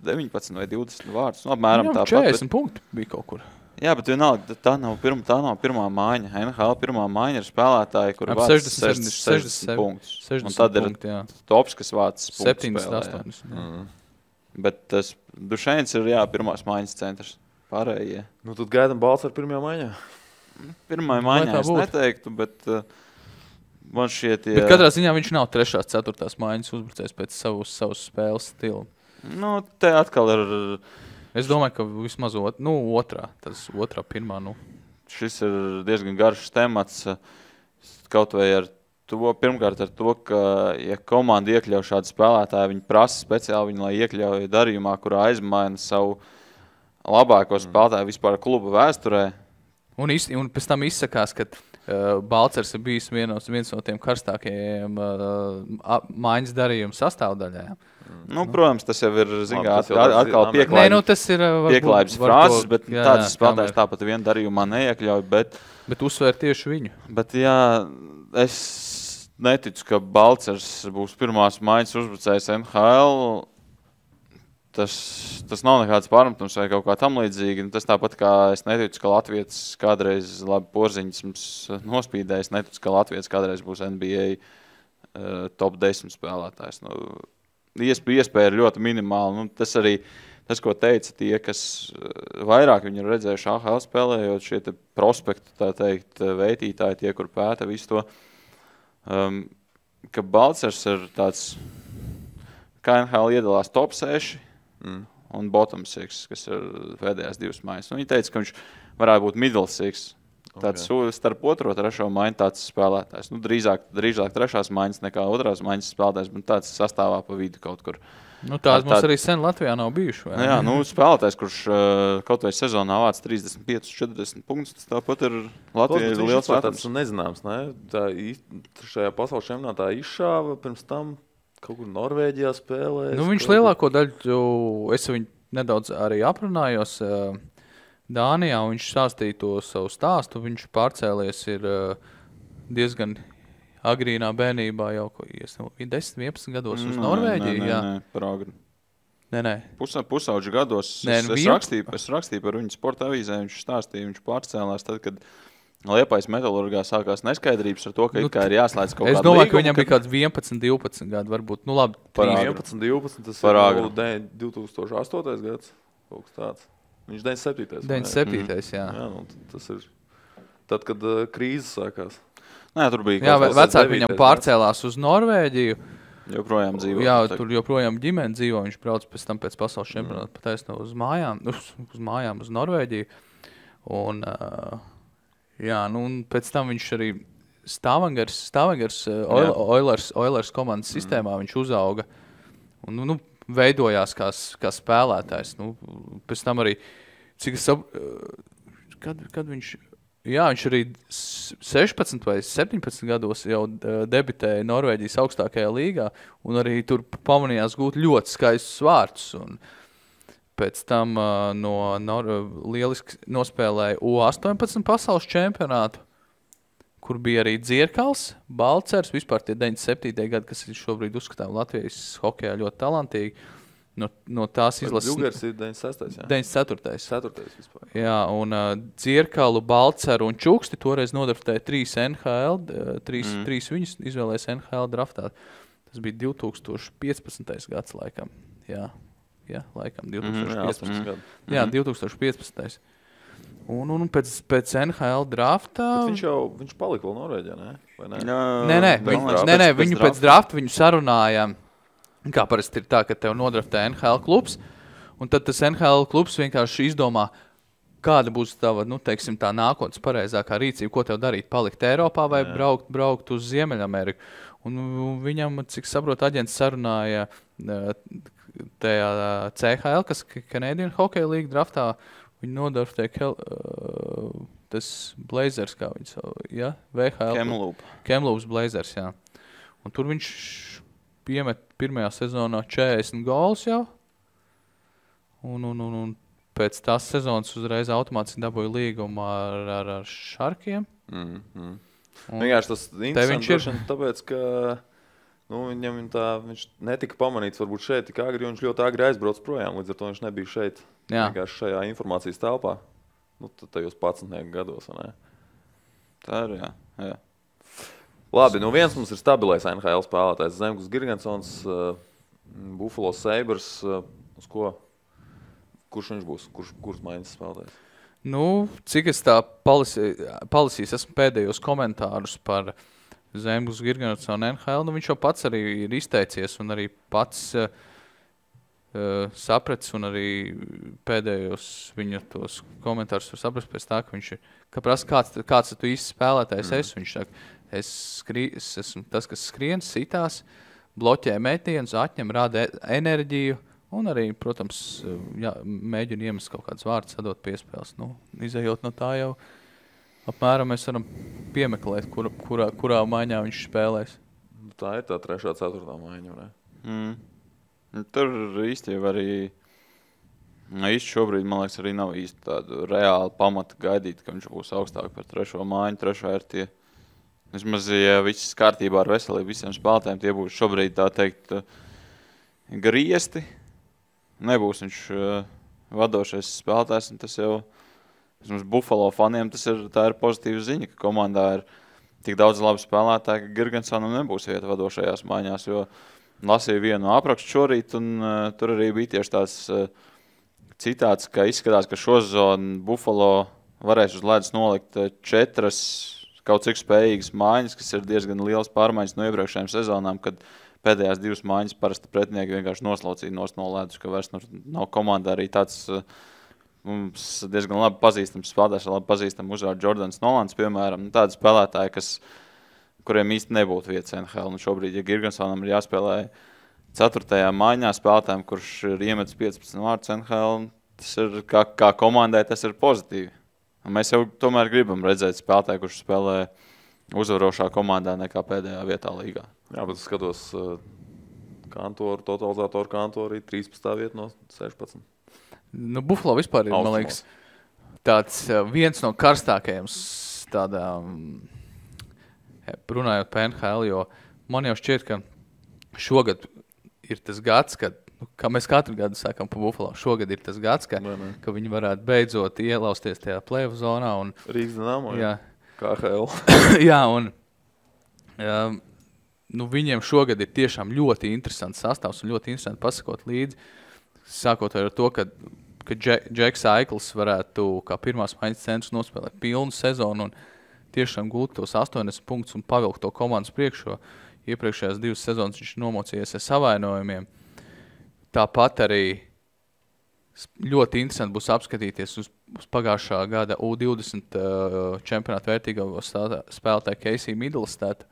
19 vai 20 vārdus. Apmēram tāpat. 40 punkti bija kaut kur. Jā, bet vienalga, tā nav pirmā mājiņa. NHL pirmā mājiņa ir spēlētāji, kuri vāc 60 punktus. 60 un tad punkti, ir tops, kas vāc punktus 7-8. Bet tas Dušeins ir, pirmās mājiņas centrs. Pārējie. Tad gaidam balts ar pirmajā mājiņā? Pirmā mājiņā es neteiktu, bet man šķiet... Bet katrā ziņā viņš nav 3. 4. mājiņas uzbrucējs pēc savas spēles stila. Te atkal ir... Es domāju, ka vismaz otrā. Tas otrā, pirmā, Šis ir diezgan garš temats, kaut vai ar to, pirmkārt ar to, ka, ja komanda iekļauj šādu spēlētāju, viņi prasa speciāli viņu, lai iekļauj darījumā, kurā aizmaina savu labāko spēlētāju vispār kluba vēsturē. Un pēc tam izsakās, ka Balcers ir bijis viens no tiem karstākajiem mājiņas darījuma sastāvdaļām. Protams, tas jau ir, atkal pieklājības frāzes, bet tāds spēlētājs tāpat vienu darījumā neiekļauj, bet uzsver tieši viņu. Bet jā, es neticu, ka Balcers būs pirmās mājiņas uzbrucējs NHL. Tas nav nekāds pārmetums vai kaut kā tam līdzīgi. Tas tāpat kā es neticu, ka Latvijas kādreiz labi Porziņas mums nospīdēja. Es neticu, ka Latvijas kādreiz būs NBA top 10 spēlētājs. Iespēja ir ļoti minimāla. Tas arī, ko teica tie, kas vairāk viņu ir redzējuši AHL spēlējot, šie te prospekti, tā teikt, veitītāji, tie, kur pēta visu to, ka Balcers ir tāds, kā NHL iedalās top 6 un bottom 6, kas ir pēdējās 2 mājas. Viņi teica, ka viņš varētu būt middle 6. Tāds starp 2. un 3. mājiņu tāds spēlētājs. Drīzāk 3. mājiņas nekā 2. mājiņas spēlētājs, bet tāds sastāvā pa vidu kaut kur. Tāds mums arī sen Latvijā nav bijuši. Vai? Jā, spēlētājs, kurš kaut vai sezonā vāc 35-40 punktus, tāpat ir Latvijā liels vērtums. Tas nezināms, ne? Tā šajā pasaules čempionātā izšāva pirms tam kaut kur Norvēģijā spēlēs. Viņš lielāko daļu, es viņu nedaudz arī aprunājos, Dānijā, viņš stāstīja to savu stāstu, viņš pārcēlies ir diezgan agrīnā bērnībā jau 10-11 gados uz Norvēģiju. Nē, par agri. Nē. Pusauģu gados es rakstīju par viņu sporta avīzē, viņš stāstīja, viņš pārcēlās tad, kad Liepājas Metalurgā sākās neskaidrības ar to, ka ir jāslēdz kaut kāda līguma. Es domāju, ka viņam bija kāds 11-12 gadi, varbūt. Labi, 11-12, tas ir 2008. gads, kaut kas tāds. Viņš 97. 97. jā. Tas ir tad, kad krīze sākās. Nē, tur bija jā, vecāki viņam pārcēlās uz Norvēģiju. Joprojām dzīvo. Jā, tur joprojām ģimene dzīvo. Viņš brauc pēc tam pēc pasaules čempionāta pataisno uz mājām, uz Norvēģiju. Un, un pēc tam viņš arī Stavangers Oilers komandas sistēmā viņš uzauga. Un, veidojās kā spēlētājs. Pēc tam arī, cik es kad viņš... Jā, viņš arī 16 vai 17 gados jau debitēja Norvēģijas augstākajā līgā un arī tur pamanījās gūt ļoti skaistus vārdus. Un pēc tam lieliski nospēlēja U18 pasaules čempionātu. kur bija arī Dzirkals, Balcers, vispār tie 97. gadi, kas ir šobrīd uzskatām Latvijas hokejā ļoti talantīgi. No tās izlases... Džugers ir 96. Jā? 94. 4. vispār. Jā, un Dzirkalu, Balceru un Čuksti toreiz nodraftēja 3 NHL, 3 viņus izvēlēs NHL draftā. Tas bija 2015. gads laikam. Jā, laikam 2015. gadu. Jā, 2015. Un pēc NHL draftā... Viņš palika vēl Norvēģijā, ne? Vai ne? Nē, viņu pēc drafta viņu sarunāja, kā parasti ir tā, ka tev nodraftē NHL klubs, un tad tas NHL klubs vienkārši izdomā, kāda būs tava, teiksim, tā nākotnes pareizākā rīcība, ko tev darīt, palikt Eiropā vai braukt uz Ziemeļameriku. Un viņam, cik saprot, aģents sarunāja tajā CHL, kas Canadian Hockey League draftā, viņi nodraftēja tas Blazers, kā viņi savu, ja? VHL. Kamloops Blazers, jā. Un tur viņš piemet pirmajā sezonā 40 gols jau. Un pēc tās sezonas uzreiz automātiski dabūja līgumu ar Šarkiem. Vienkārši tas interesanti, tāpēc, ka viņš netika pamanīts varbūt šeit tik agri, un viņš ļoti agri aizbrauc projām, līdz ar to viņš nebija šeit. Vienkārši šajā informācijas telpā. Tajos 11 gados, vai ne? Tā ir, jā. Labi, viens mums ir stabilais NHL spēlētājs. Zemgus Girgensons, Buffalo Sabres, uz ko? Kurš viņš būs? Kurš maiņas spēlētājs? Cik es tā palasījis, esmu pēdējos komentārus par Zemgus Girgensonu NHL, viņš jau pats arī ir izteicies un arī pats sapratis, un arī pēdējos viņa tos komentārus var saprast pēc tā, ka viņš ir, ka prasa, kāds tu īsti spēlētājs esi, viņš saka, es esmu tas, kas skrien, sitās, bloķē metienus, atņem, rada enerģiju, un arī, protams, mēģina iemest kaut kādas vārdas, sadot piespēles. Izejot no tā jau, apmēram mēs varam piemeklēt, kurā maiņā viņš spēlēs. Tā ir tā 3. 4. maiņa, ne? Tur īsti jau arī, šobrīd, man liekas, arī nav īsti tādu reāli pamata gaidīt, ka viņš būs augstāk par 3. maiņu. 3. ir tie, vismaz, ja viss kārtībā ar veselību visiem spēlētājiem, tie būs šobrīd, tā teikt, griesti. Nebūs viņš vadošais spēlētājs, un tas jau, vismaz Buffalo faniem, tā ir pozitīva ziņa, ka komandā ir tik daudz labi spēlētāji, ka Girgensonam nebūs vieta vadošajās maiņās, jo lasīju vienu aprakstu šorīt, un tur arī bija tieši tās citāts, ka izskatās, ka šo sezonu Buffalo varēs uz ledus nolikt 4 kaut cik spējīgas maiņas, kas ir diezgan liels pārmaiņas no iepriekšējām sezonām, kad pēdējās 2 maiņas parasti pretinieki vienkārši noslaucīja no ledus, ka vairs nav komandā arī tāds mums diezgan labi pazīstams spēlētājs, labi pazīstams uzvārds Jordans Nolans, piemēram, tādi spēlētāji, kuriem īsti nebūtu vietas NHL. Un šobrīd, ja Girgensonam ir jāspēlē 4. maiņā spēlētājiem, kurš ir iemetis 15 vārdus NHL, tas ir kā komandai, tas ir pozitīvi. Un mēs jau tomēr gribam redzēt spēlētāju, kurš spēlē uzvarošā komandā nekā pēdējā vietā līgā. Jā, bet es skatos totalizātoru kantoru arī 13. vieta no 16. Buffalo vispār ir, man liekas, tāds viens no karstākajiem tādām runājot par NHL, jo man jau šķiet, ka šogad ir tas gads, kad, kā mēs katru gadu sakam par Buffalo, šogad ir tas gads, ka viņi varētu beidzot ielausties tajā play-off zonā. Rīgas Dinamo, KHL. Jā, un viņiem šogad ir tiešām ļoti interesants sastāvs un ļoti interesanti pasakot līdzi, sākot ar to, ka Džeks Aikls varētu kā pirmās maiņas centrs nospēlēt pilnu sezonu un tiešām gūt tos 80 punktus un pavilkt to komandas priekšo. Iepriekšējās 2 sezonas viņš nomocījies ar savainojumiem. Tāpat arī ļoti interesanti būs apskatīties uz pagājušā gada U20 čempionātu vērtīgo spēlētāju Casey Middlestad,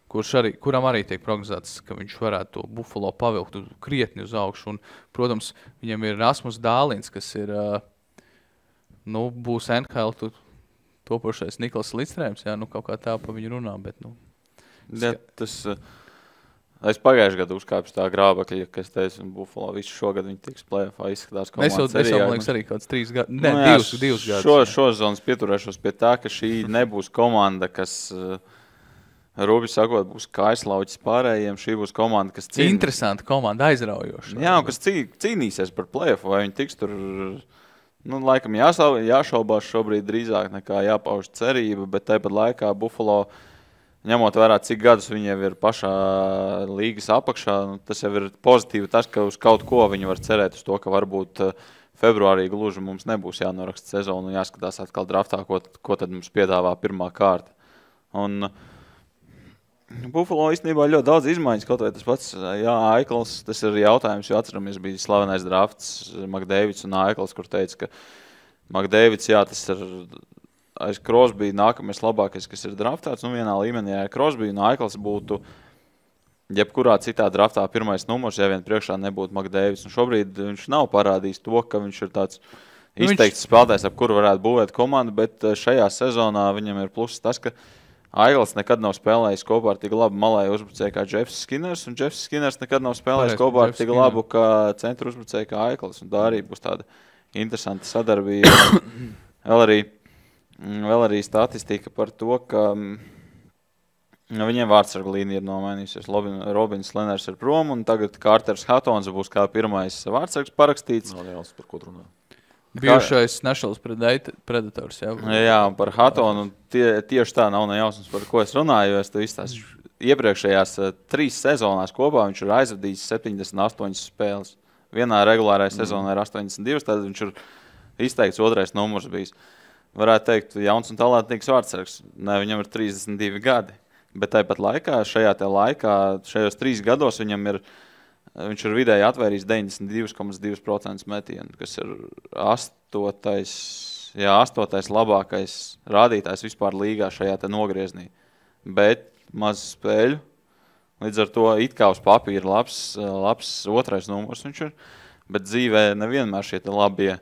kuram arī tiek prognozēts, ka viņš varētu to Buffalo pavilkt krietni uz augšu. Un, protams, viņam ir Rasmus Dālins, kas ir, būs NHL topošais Niklas Lidstrēms, kaut kā tā pa viņu runā, bet, Ja, tas Es pagājušajā gadā uzkāpu tā grābekļa, kas teica, un Buffalo visu šogad viņi tiks play-offā izskatās komandas Es jau, man liekas, arī kaut kāds 3 gadi. Ne, 2 gadus. Šo zonas pieturēšos pie tā, ka šī nebūs komanda, kas, rūpīgi sakot, būs kaislauķis pārējiem. Šī būs komanda, kas cīnīs. Interesanta komanda, aizraujoša. Jā, un kas cīnīsies par play-offu, vai viņi tiks tur, laikam jāšaubās šobrīd drīzāk nekā jāpauž cerība, bet tāpat laikā Buffalo, ņemot vērā, cik gadus viņi jau ir pašā līgas apakšā, tas jau ir pozitīvi tas, ka uz kaut ko viņi var cerēt uz to, ka varbūt februārī gluži mums nebūs jānoraksta sezonu un jāskatās atkal draftā, ko tad mums piedāvā pirmā kārta. Un Buffalo īstenībā ļoti daudz izmaiņas, kaut vai tas pats, Aikls, tas ir jautājums, jo atceramies, bija slavenais drafts McDavids un Aikls, kur teica, ka McDavids, tas ir aiz Crosby nākamais labākais, kas ir draftēts, vienā līmenī, ja Crosby un Aikls būtu jebkurā citā draftā pirmais numurs, ja vien priekšā nebūtu McDavids. Un šobrīd viņš nav parādījis to, ka viņš ir tāds izteikts spēlētājs, ap kuru varētu būvēt komandu, bet šajā sezonā viņam ir pluss tas, ka Aikls nekad nav spēlējis kopā ar tik labu malēju uzbrucēju kā Jeffs Skinners, un Jeffs Skinners nekad nav spēlējis kopā ar tik labu kā centru uzbrucēju kā Aikls, un tā arī būs tāda interesanta sadarbība. Vēl arī statistika par to, ka viņiem vārdsargu līnija ir nomainījusies. Robins Leners ir prom, un tagad Carters Hattons būs kā pirmais vārdsargs parakstīts. Nav jāuz par ko runā. Bijušais Nationals Predators. Jā, un par Hattonu tieši tā nav nejausmas, par ko es runāju, jo es tev izstāstu. Iepriekšējās 3 sezonās kopā viņš ir aizvadījis 78 spēles. Vienā regulārajā sezonā ir 82, tad viņš ir izteikts otrais numurs bijis. Varētu teikt, jauns un talantīgs vārdsargs. Ne, viņam ir 32 gadi. Bet tāpat laikā, šajos 3 gados viņš ir vidēji atvērījis 92,2% metienu, kas ir 8. labākais rādītājs vispār līgā šajā te nogrieznī. Bet maz spēļu. Līdz ar to it kā uz papīra labs otrais numurs viņš ir. Bet dzīvē nevienmēr šie te labie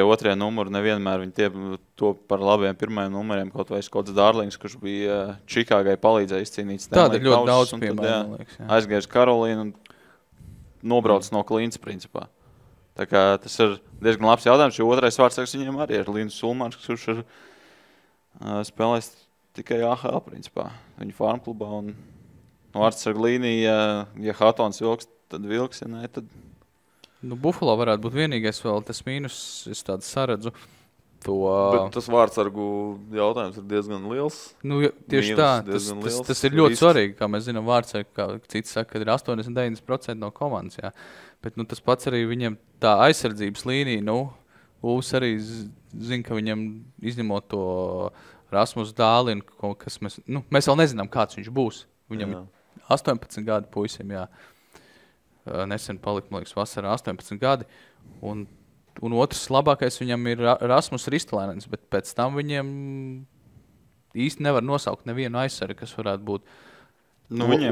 otrie numuri, nevienmēr viņi to par labiem pirmajiem numuriem, kaut vai Skots Dārlings, kurš bija Čikāgai palīdzēja izcīnīt Stanley Kausu. Tāda ļoti daudz piemēram, liekas. Aizgājis Karolīnu un nobrauc no Klīnas principā. Tā kā tas ir diezgan labs jautājums, jo otrais vārdsargs viņiem arī ir Linus Sulmans, kurš ir spēlējis tikai AHL principā. Viņa farmklubā un vārdsargu līnija, ja Hattons vilks, tad vilks, ja ne, tad... Buffalo varētu būt vienīgais vēl tas mīnus, es tādu saredzu. Bet tas vārdsargu jautājums ir diezgan liels. Tieši tā, tas ir ļoti svarīgi, kā mēs zinām vārdsargu, kā citi saka, ka ir 80-90% no komandas, jā. Bet tas pats arī viņam tā aizsardzības līnija, Ulfs arī zina, ka viņam izņemot to Rasmus Dālinu, kas mēs vēl nezinām, kāds viņš būs. Viņam ir 18 gadi puisim, jā. Nesen palika, man liekas, vasarā 18 gadi. Un otrs labākais viņam ir Rasmus Ristolainens, bet pēc tam viņiem īsti nevar nosaukt nevienu aizsargu, kas varētu būt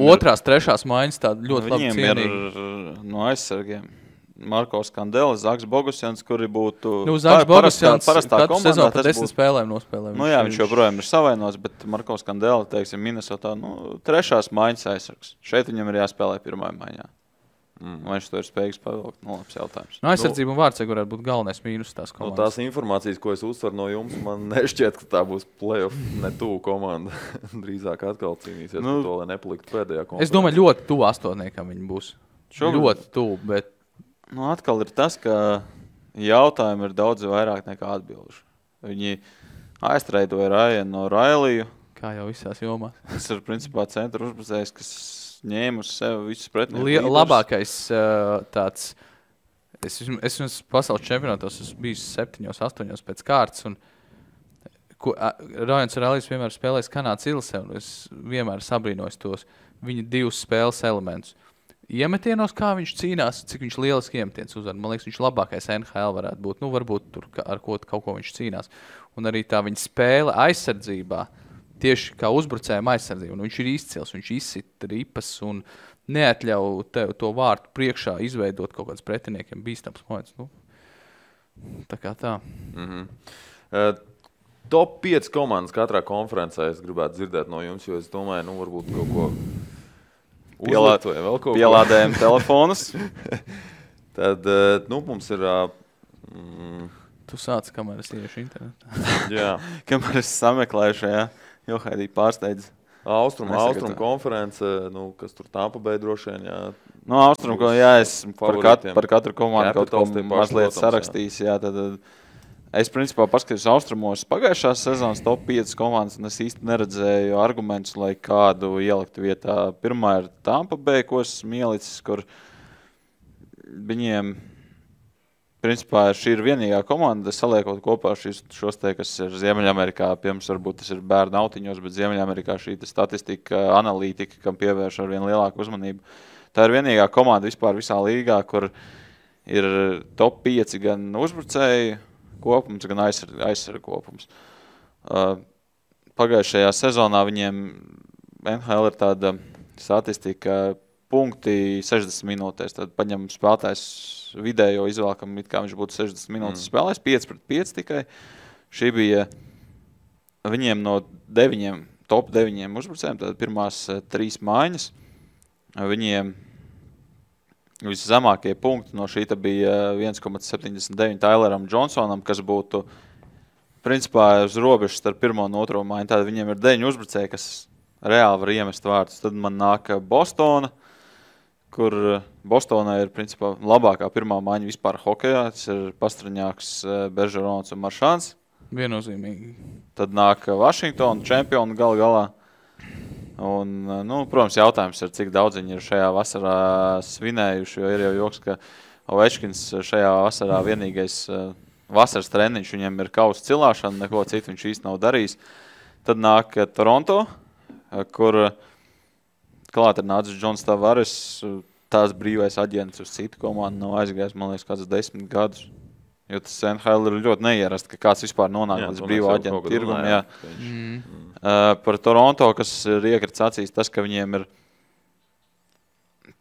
otrās, trešās maiņas tāda ļoti labi cienīgi. Viņiem ir no aizsargiem Markovs Kandelis, Zaks Bogusjans, kuri būtu Zaks Bogusjans parastā komandā. Sezonu pa 10 spēlēm nospēlē. Viņš joprojām ir savainos, bet Markovs Kandelis, teiksim, Minnesotā, trešās maiņas aizsargs. Šeit viņam ir jāspēlē pirmā maiņā. Vai viņš to ir spējīgs pavilkt? Labs jautājums. Aizsardzība un vārdsargi varētu būt galvenais mīnus tās komandas. Tās informācijas, ko es uztveru no jums, man nešķiet, ka tā būs play-off netuvu komanda. Drīzāk atkal cīnīsies par to, lai nepaliktu pēdējā konferencē. Es domāju, ļoti tuvu astotniekam viņi būs. Ļoti tuvu, bet... Atkal ir tas, ka jautājumi ir daudz vairāk nekā atbilžu. Viņi aiztreidoja Rajanu no Railiju. Kā jau visās jomās. Tas ir principā centra uzbrucējs, kas ņēma uz sevi visus pretinieku. Labākais tāds, es pasaules čempionātos esmu bijis 7-8 pēc kārtas, un Rajans Railijs vienmēr spēlējis Kanādas Ilse, un es vienmēr sabrīnojos tos viņa 2 spēles elementus. Iemetienos, kā viņš cīnās, cik viņš lieliski iemetiens uzvar. Man liekas, viņš labākais NHL varētu būt. Varbūt tur ar kaut ko viņš cīnās. Un arī tā viņa spēle aizsardzībā, tieši kā uzbrucējuma aizsardzība. Viņš ir izcils, viņš izsit ripas un neatļauj to vārtu priekšā izveidot kaut kāds pretiniekiem bīstams moments. Tā kā tā. Top 5 komandas katrā konferencē es gribētu dzirdēt no jums, jo es domāju, varbūt kaut ko pielādējam telefonus. Tad mums ir... Tu sāc, kamēr es iešu internetā. Jā. Kamēr es sameklēju šajā, jo Haidī pārsteidz. Austrum konference, kas tur Tampa Bay droši vien, jā. Austrum, es par katru komandu kaut ko mazliet sarakstījis, jā, tad es principā paskatījos Austrumos pagājušās sezonas top 5 komandas, un es īsti neredzēju argumentus, lai kādu ielikt vietā. Pirmā ir Tampa Bay, ko esmu ielicis, kur viņiem, principā, šī ir vienīgā komanda, saliekot kopā šos te, kas ir Ziemeļamerikā, piemēram, varbūt tas ir bērnu autiņos, bet Ziemeļamerikā šī statistika, analītika, kam pievērš ar vien lielāku uzmanību. Tā ir vienīgā komanda vispār visā līgā, kur ir top 5 gan uzbrucēji kopums, gan aizsargu kopums. Pagājušajā sezonā viņiem NHL ir tāda statistika, punkti 60 minūtēs. Tad paņem spēlētājs vidējo izvēlkam, it kā viņš būtu 60 minūtes spēlējis, 5-5 tikai. Šī bija viņiem no top 9 uzbrucējiem, tad pirmās 3 maiņas. Viņiem viszemākie punkti no šī bija 1,79 Tyleram Johnsonam, kas būtu principā uz robežas starp pirmo un otro maiņu. Tātad viņiem ir 9 uzbrucēji, kas reāli var iemest vārdus. Tad man nāk Bostona, kur Bostonā ir principā labākā pirmā maiņa vispār hokejā. Tas ir Pastraņāks, Beržerons un Maršāns. Viennozīmīgi. Tad nāk Vašingtona čempioni galā. Un, protams, jautājums ir, cik daudz viņi ir šajā vasarā svinējuši, jo ir jau joks, ka Ovečkins šajā vasarā vienīgais vasaras treniņš, viņam ir kausa cilāšana, neko citu viņš īsti nav darījis. Tad nāk Toronto, kur klāt ir nācis Džons Tavares, tās brīvais aģents uz citu komandu nav aizgājis, man liekas, kāds 10 gadus. Jo tas NHL ir ļoti neierast, ka kāds vispār nonāk līdz brīvo aģentu tirgumu. Par Toronto, kas ir iekrits acīs, tas, ka viņiem ir,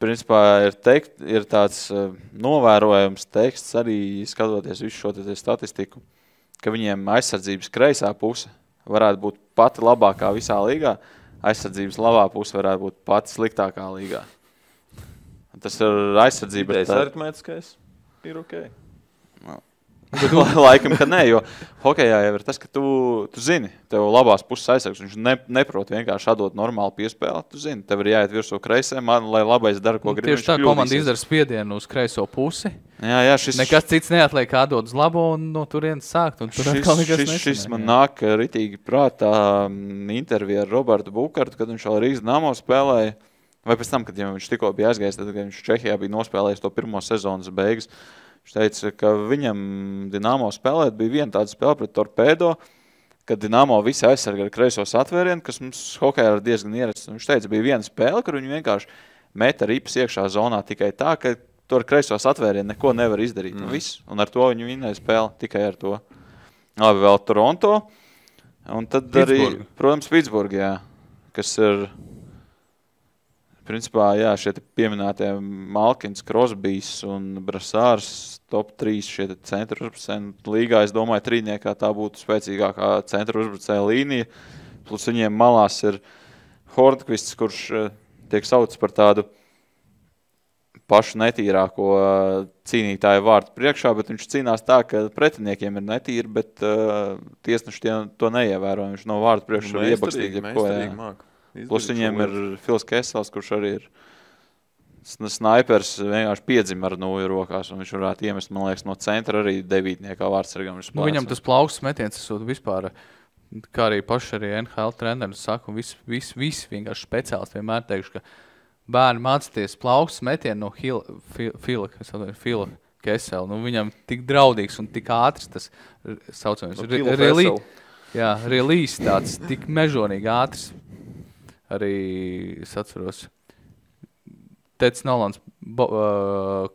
principā, ir tāds novērojams teksts, arī skatoties visu šo statistiku, ka viņiem aizsardzības kreisā puse varētu būt pati labākā visā līgā, aizsardzības labā puse varētu būt pati sliktākā līgā. Tas ir aizsardzība. Idejas aritmētiskais ir ok. Laikam, ka nē, jo hokejā jau ir tas, ka tu zini, tev labās puses aizsargs, viņš neprot vienkārši atdot normālu piespēli, tu zini, tev ir jāiet virsū kreisēm, lai labais dara, ko grib. Tieši tā komanda izdara spiedienu uz kreiso pusi. Jā, nekas cits neatliek atdot uz labo un no turienes sākt. Un tur šis man nāk ritīgi prātā intervija ar Robertu Bukartu, kad viņš vēl Rīgas Dinamo spēlēja, vai pēc tam, kad viņš tikko bija aizgājis, tad, kad viņš Čehijā bija nospēlējis to pirmo sezonas beigas. Viņš teica, ka viņam Dinamo spēlēt bija viena tāda spēle pret Torpedo, kad Dinamo visi aizsarga ar kreisos atvērienu, kas mums hokejā ir diezgan ierasts. Viņš teica, bija viena spēle, kur viņi vienkārši meta ripas iekšā zonā tikai tā, ka tu ar kreisos atvērienu neko nevar izdarīt. Un ar to viņi vinnēja spēli, tikai ar to. Labi, vēl Toronto. Un tad Pittsburgh. Arī, protams, Pittsburgh, jā, kas ir... Principā, jā, šie pieminētie Malkins, Crosbys un Brassārs top 3 šie centru uzbrucēji. Līgā, es domāju, trīniekā tā būtu spēcīgākā centru uzbrucēja līnija. Plus viņiem malās ir Hornqvists, kurš tiek saucts par tādu pašu netīrāko cīnītāju vārtu priekšā, bet viņš cīnās tā, ka pretiniekiem ir netīri, bet tiesneši to neievēro. Viņš no vārtu priekšā iebakstīt jebko. Plus viņiem ir Fils Kesels, kurš arī ir snaipers, vienkārši piedzim ar nūju rokās, un viņš varētu iemest, man liekas, no centra arī devītniekā vārdsargam. Viņam tas plaukstas metiens, tas vispār, kā arī paši arī NHL treneris saka, un visi vienkārši speciālisti vienmēr teikšu, ka bērni mācīties plaukstas metienu no Fila Kesela. Viņam tik draudīgs un tik ātrs tas saucamais. Release tāds, tik mežonīgi ātrs. Arī es atceros, Teds Nolans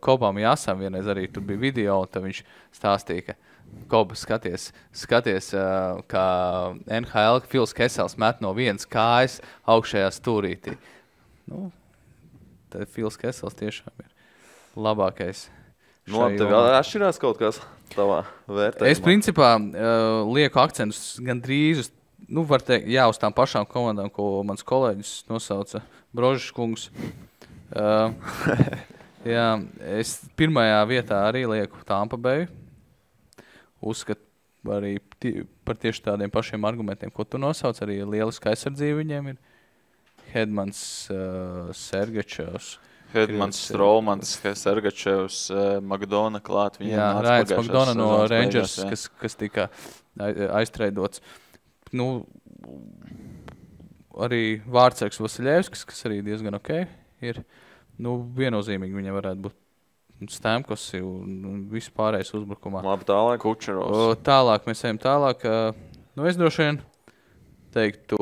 Kobam Jāsam vienreiz arī tur bija video, un tad viņš stāstīja, ka Koba skaties, kā NHL Fils Kesels met no vienas kājas augšējā stūrītī. Tad Fils Kesels tiešām ir labākais. Tev atšķirās kaut kas tavā vērtējumā? Es principā lieku akcentus gandrīz uz var teikt, uz tām pašām komandām, ko mans kolēģis nosauca Brožas kungs. Jā, es pirmajā vietā arī lieku Tampa Bay. Uzskatu arī par tieši tādiem pašiem argumentiem, ko tu nosauc. Arī lieliska aizsardzība viņiem ir. Hedmans, Sergačevs. Hedmans, Strolmans, Sergačevs, Magdona klāt. Jā, Rājans Magdona no Rangers, kas tika aiztreidots. Nu, arī Vārtsargs Vasiljevskis, kas arī diezgan ok ir. Nu, viennozīmīgi viņam varētu būt Stamkosi un vispārējais uzbrukumā. Labi, tālāk. Kučerovs. Tālāk, mēs ejam tālāk. Nu, es droši vien teiktu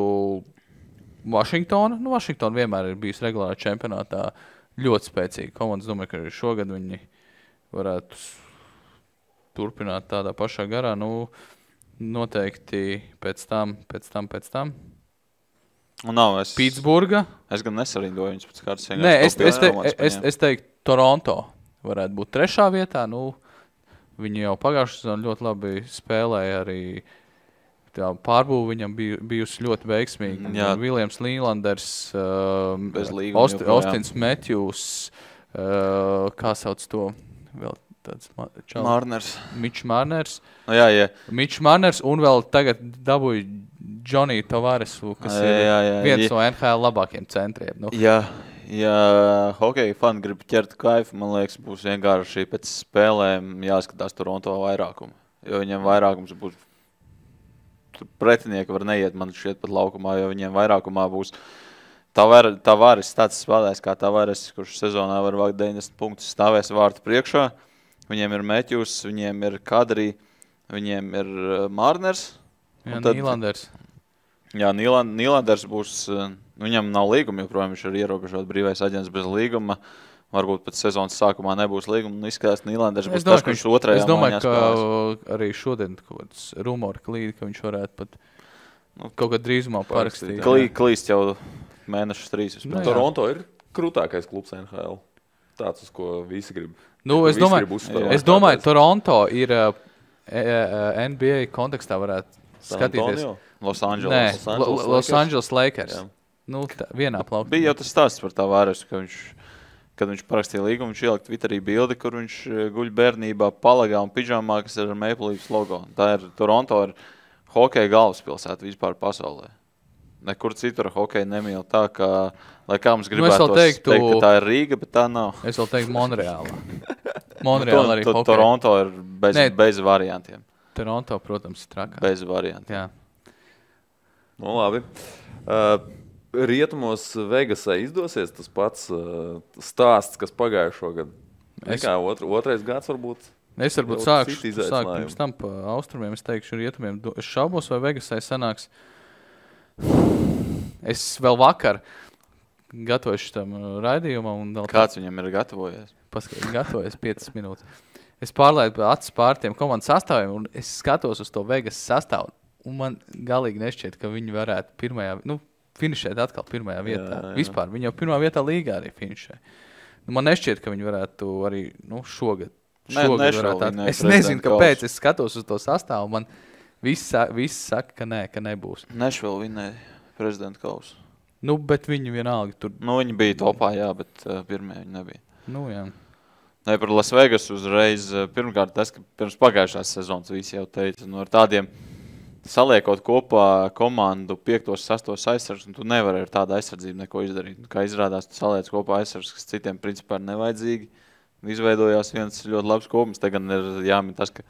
Vašingtona. Nu, Vašingtona vienmēr ir bijusi regulārā čempionātā ļoti spēcīga komanda. Es domāju, ka arī šogad viņi varētu turpināt tādā pašā garā. Nu, noteikti pēc tam. Un nav, Pitsburga. Es gan nesarindoju viņus pēc kārtas. Nē, es teiktu Toronto varētu būt 3. vietā. Nu, viņi jau pagājušajā sezonā ļoti labi spēlēja arī. Tā pārbūve viņam bijusi ļoti veiksmīga. Viljams Līlanders, Austins Matthews, kā sauc to vēl tāds Marners. Mitch Marners. No, jā. Mitch Marners un vēl tagad dabūja Johnny Tavaresu, kas ir viens no NHL labākiem centriem. Nu. Ja hokeja fani grib ķert kaifu, man liekas, būs vienkārši pēc spēlēm jāskatās Toronto vairākumu. Jo viņiem vairākums būs pretinieki var neiet, man šķiet pat laukumā, jo viņiem vairākumā būs Tavares tāds spēlēs kā Tavares, kurš sezonā var vākt 90 punktus, stāvēs vārtu priekšā. Viņiem ir Matthews, viņiem ir Kadri, viņiem ir Marners. Jā, Nīlanders. Jā, Nīlanders būs, viņam nav līguma, joprojām viņš ir ierobežot brīvais aģents bez līguma. Varbūt pēc sezonas sākumā nebūs līguma. Izskatās, Nīlanders būs tas, kurš otrajā maiņā spēlēs. Es domāju, ka arī šodien kaut kāds rumori klīd, ka viņš varētu pat kaut kad drīzumā parakstīt. Klīst jau mēnešus 3. Nu, Toronto ir krūtākais klubs NHL. Tāds, uz ko visi grib. Nu, es domāju, Toronto ir NBA kontekstā varētu skatīties. Los Angeles. Los Angeles Lakers. Nu, vienā plaukā. Bija jau tas stāsts par Tavaresu, ka kad viņš parakstīja līgumu, viņš ielikt Twitterī bildi, kur viņš guļ bērnībā palagā un pidžamā, kas ir ar Maple Leafs logo. Tā ir Toronto ir hokeja galvaspilsēta vispār pasaulē. Nekur citur hokeja nemīl tā, ka, lai kā mums gribētu teikt, ka tā ir Rīga, bet tā nav. Es vēl teiktu Monreālā. Monreālā arī hokeja. Toronto ir bez variantiem. Toronto, protams, ir trakā. Bez variantiem. Jā. Nu, labi. Rietumos Vegasai izdosies tas pats stāsts, kas pagājušo gadu. Otrais gads varbūt. Es varbūt sākšu pirms tam pa austrumiem. Es teikšu rietumiem. Es šaubos, vai Vegasai sanāks. Es vēl vakar gatavojuši tam raidījumam. Kāds viņam ir gatavojies? Gatavojies 5 minūtes. Es pārlaidu acis pār tiem komandas sastāviem un es skatos uz to Vegas sastāvu. Un man galīgi nešķiet, ka viņi varētu finišēt atkal pirmajā vietā. Jā. Vispār, viņi jau pirmā vietā līgā arī finišē. Man nešķiet, ka viņi varētu arī šogad varētu. Es nezinu, kāpēc es skatos uz to sastāvu. Man viss saka, ka nē, ka nebūs. Nešvill vinēja prezidenta kausu. Bet viņi vienalga tur. Viņi bija topā, jā, bet pirmie viņi nebija. Jā. Nē, par Las Vegas uzreiz. Pirmkārt, tas, ka pirms pagājušās sezonas visi jau teica, ar tādiem saliekot kopā komandu 5. 6. aizsargs, un tu nevari ar tādu aizsardzību neko izdarīt. Kā izrādās, tu saliec kopā aizsargs, kas citiem principā ir nevajadzīgi. Izveidojās viens ļoti labs kopums. Te gan ir jāmin tas, ka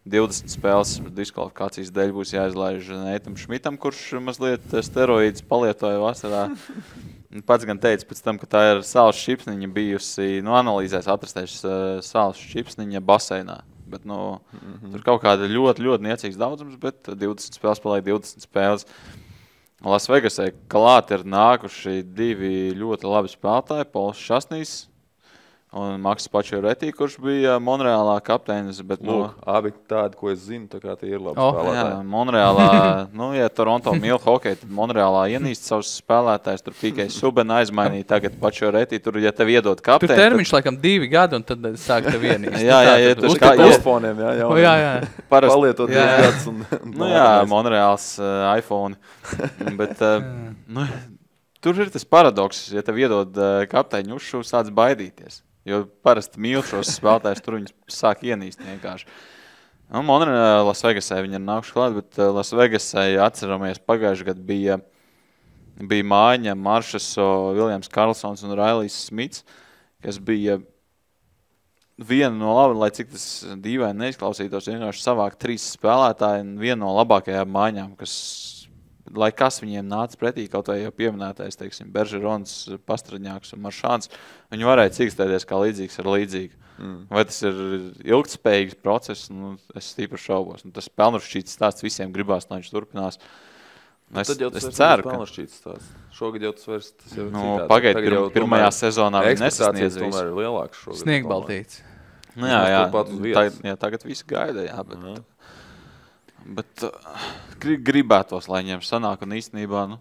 20 spēles diskvalifikācijas dēļ būs jāizlaiž Neitam Šmitam, kurš mazliet steroīdus palietoja vasarā. Pats gan teica pēc tam, ka tā ir sāls šipsniņa bijusi, analīzēs atrastējuši sāls šipsniņa baseinā. Bet, tur kaut kāda ļoti, ļoti niecīgs daudzums, bet 20 spēles paliek 20 spēles. Las Vegasai klāt ir nākuši 2 ļoti labi spēlētāji, Pols Šasnīs un Maks Pačioretī, kurš bija Monreālā kapteinis. Bet, abi tādi, ko es zinu, tā kā tie ir labi spēlētāji. Jā, Monreālā, ja Toronto mīl hokeju, tad Monreālā ienīst savus spēlētājus, tur tikai Subena aizmainīja, tagad Pačioretī, tur, ja tev iedod kapteini. Tur termiņš laikam 2 gadi, un tad sāk tev ienīst. Jā, tur kā iPhone'iem, jā. Palietot 2 gadus. Monreāls iPhone. Bet, tur ir tas paradoks, ja tev iedod kapteiņu uzšuvu, sāc baidīties. Jo parasti mīl šos spēlētājus, tur viņus sāk ienīst vienkārši. Nu, Monreālā Lasvegasē viņi ir nākuši klāt, bet Lasvegasē, atceramies, pagājuši gadu bija mājiņa Maršaso, Viljams Karlsons un Railijs Smits, kas bija viena no laba, lai cik tas dīvaini neizklausītos, vienkārši savāk 3 spēlētāji un viena no labākajām mājiņām, lai kas viņiem nāca pretī, kaut vai jau pieminētais, teiksim, Beržerons, Pastraņāks un Maršāns, viņi varēja cīkstēties kā līdzīgs ar līdzīgu. Vai tas ir ilgtspējīgs process, nu, es tīpaši šaubos. Nu, tas pelnušķīts stāsts visiem gribās, lai viņš turpinās. Es ceru, ka... Šogad jau tas vairs tas jau citādi. Pagaid, pirmajā sezonā viņi nesasniedz visu. Tomēr ir lielāks šogad. Sniegbaltīts. Jā, tagad visi gaida, jā, bet gribētos, lai viņiem sanāk un īstenībā, nu,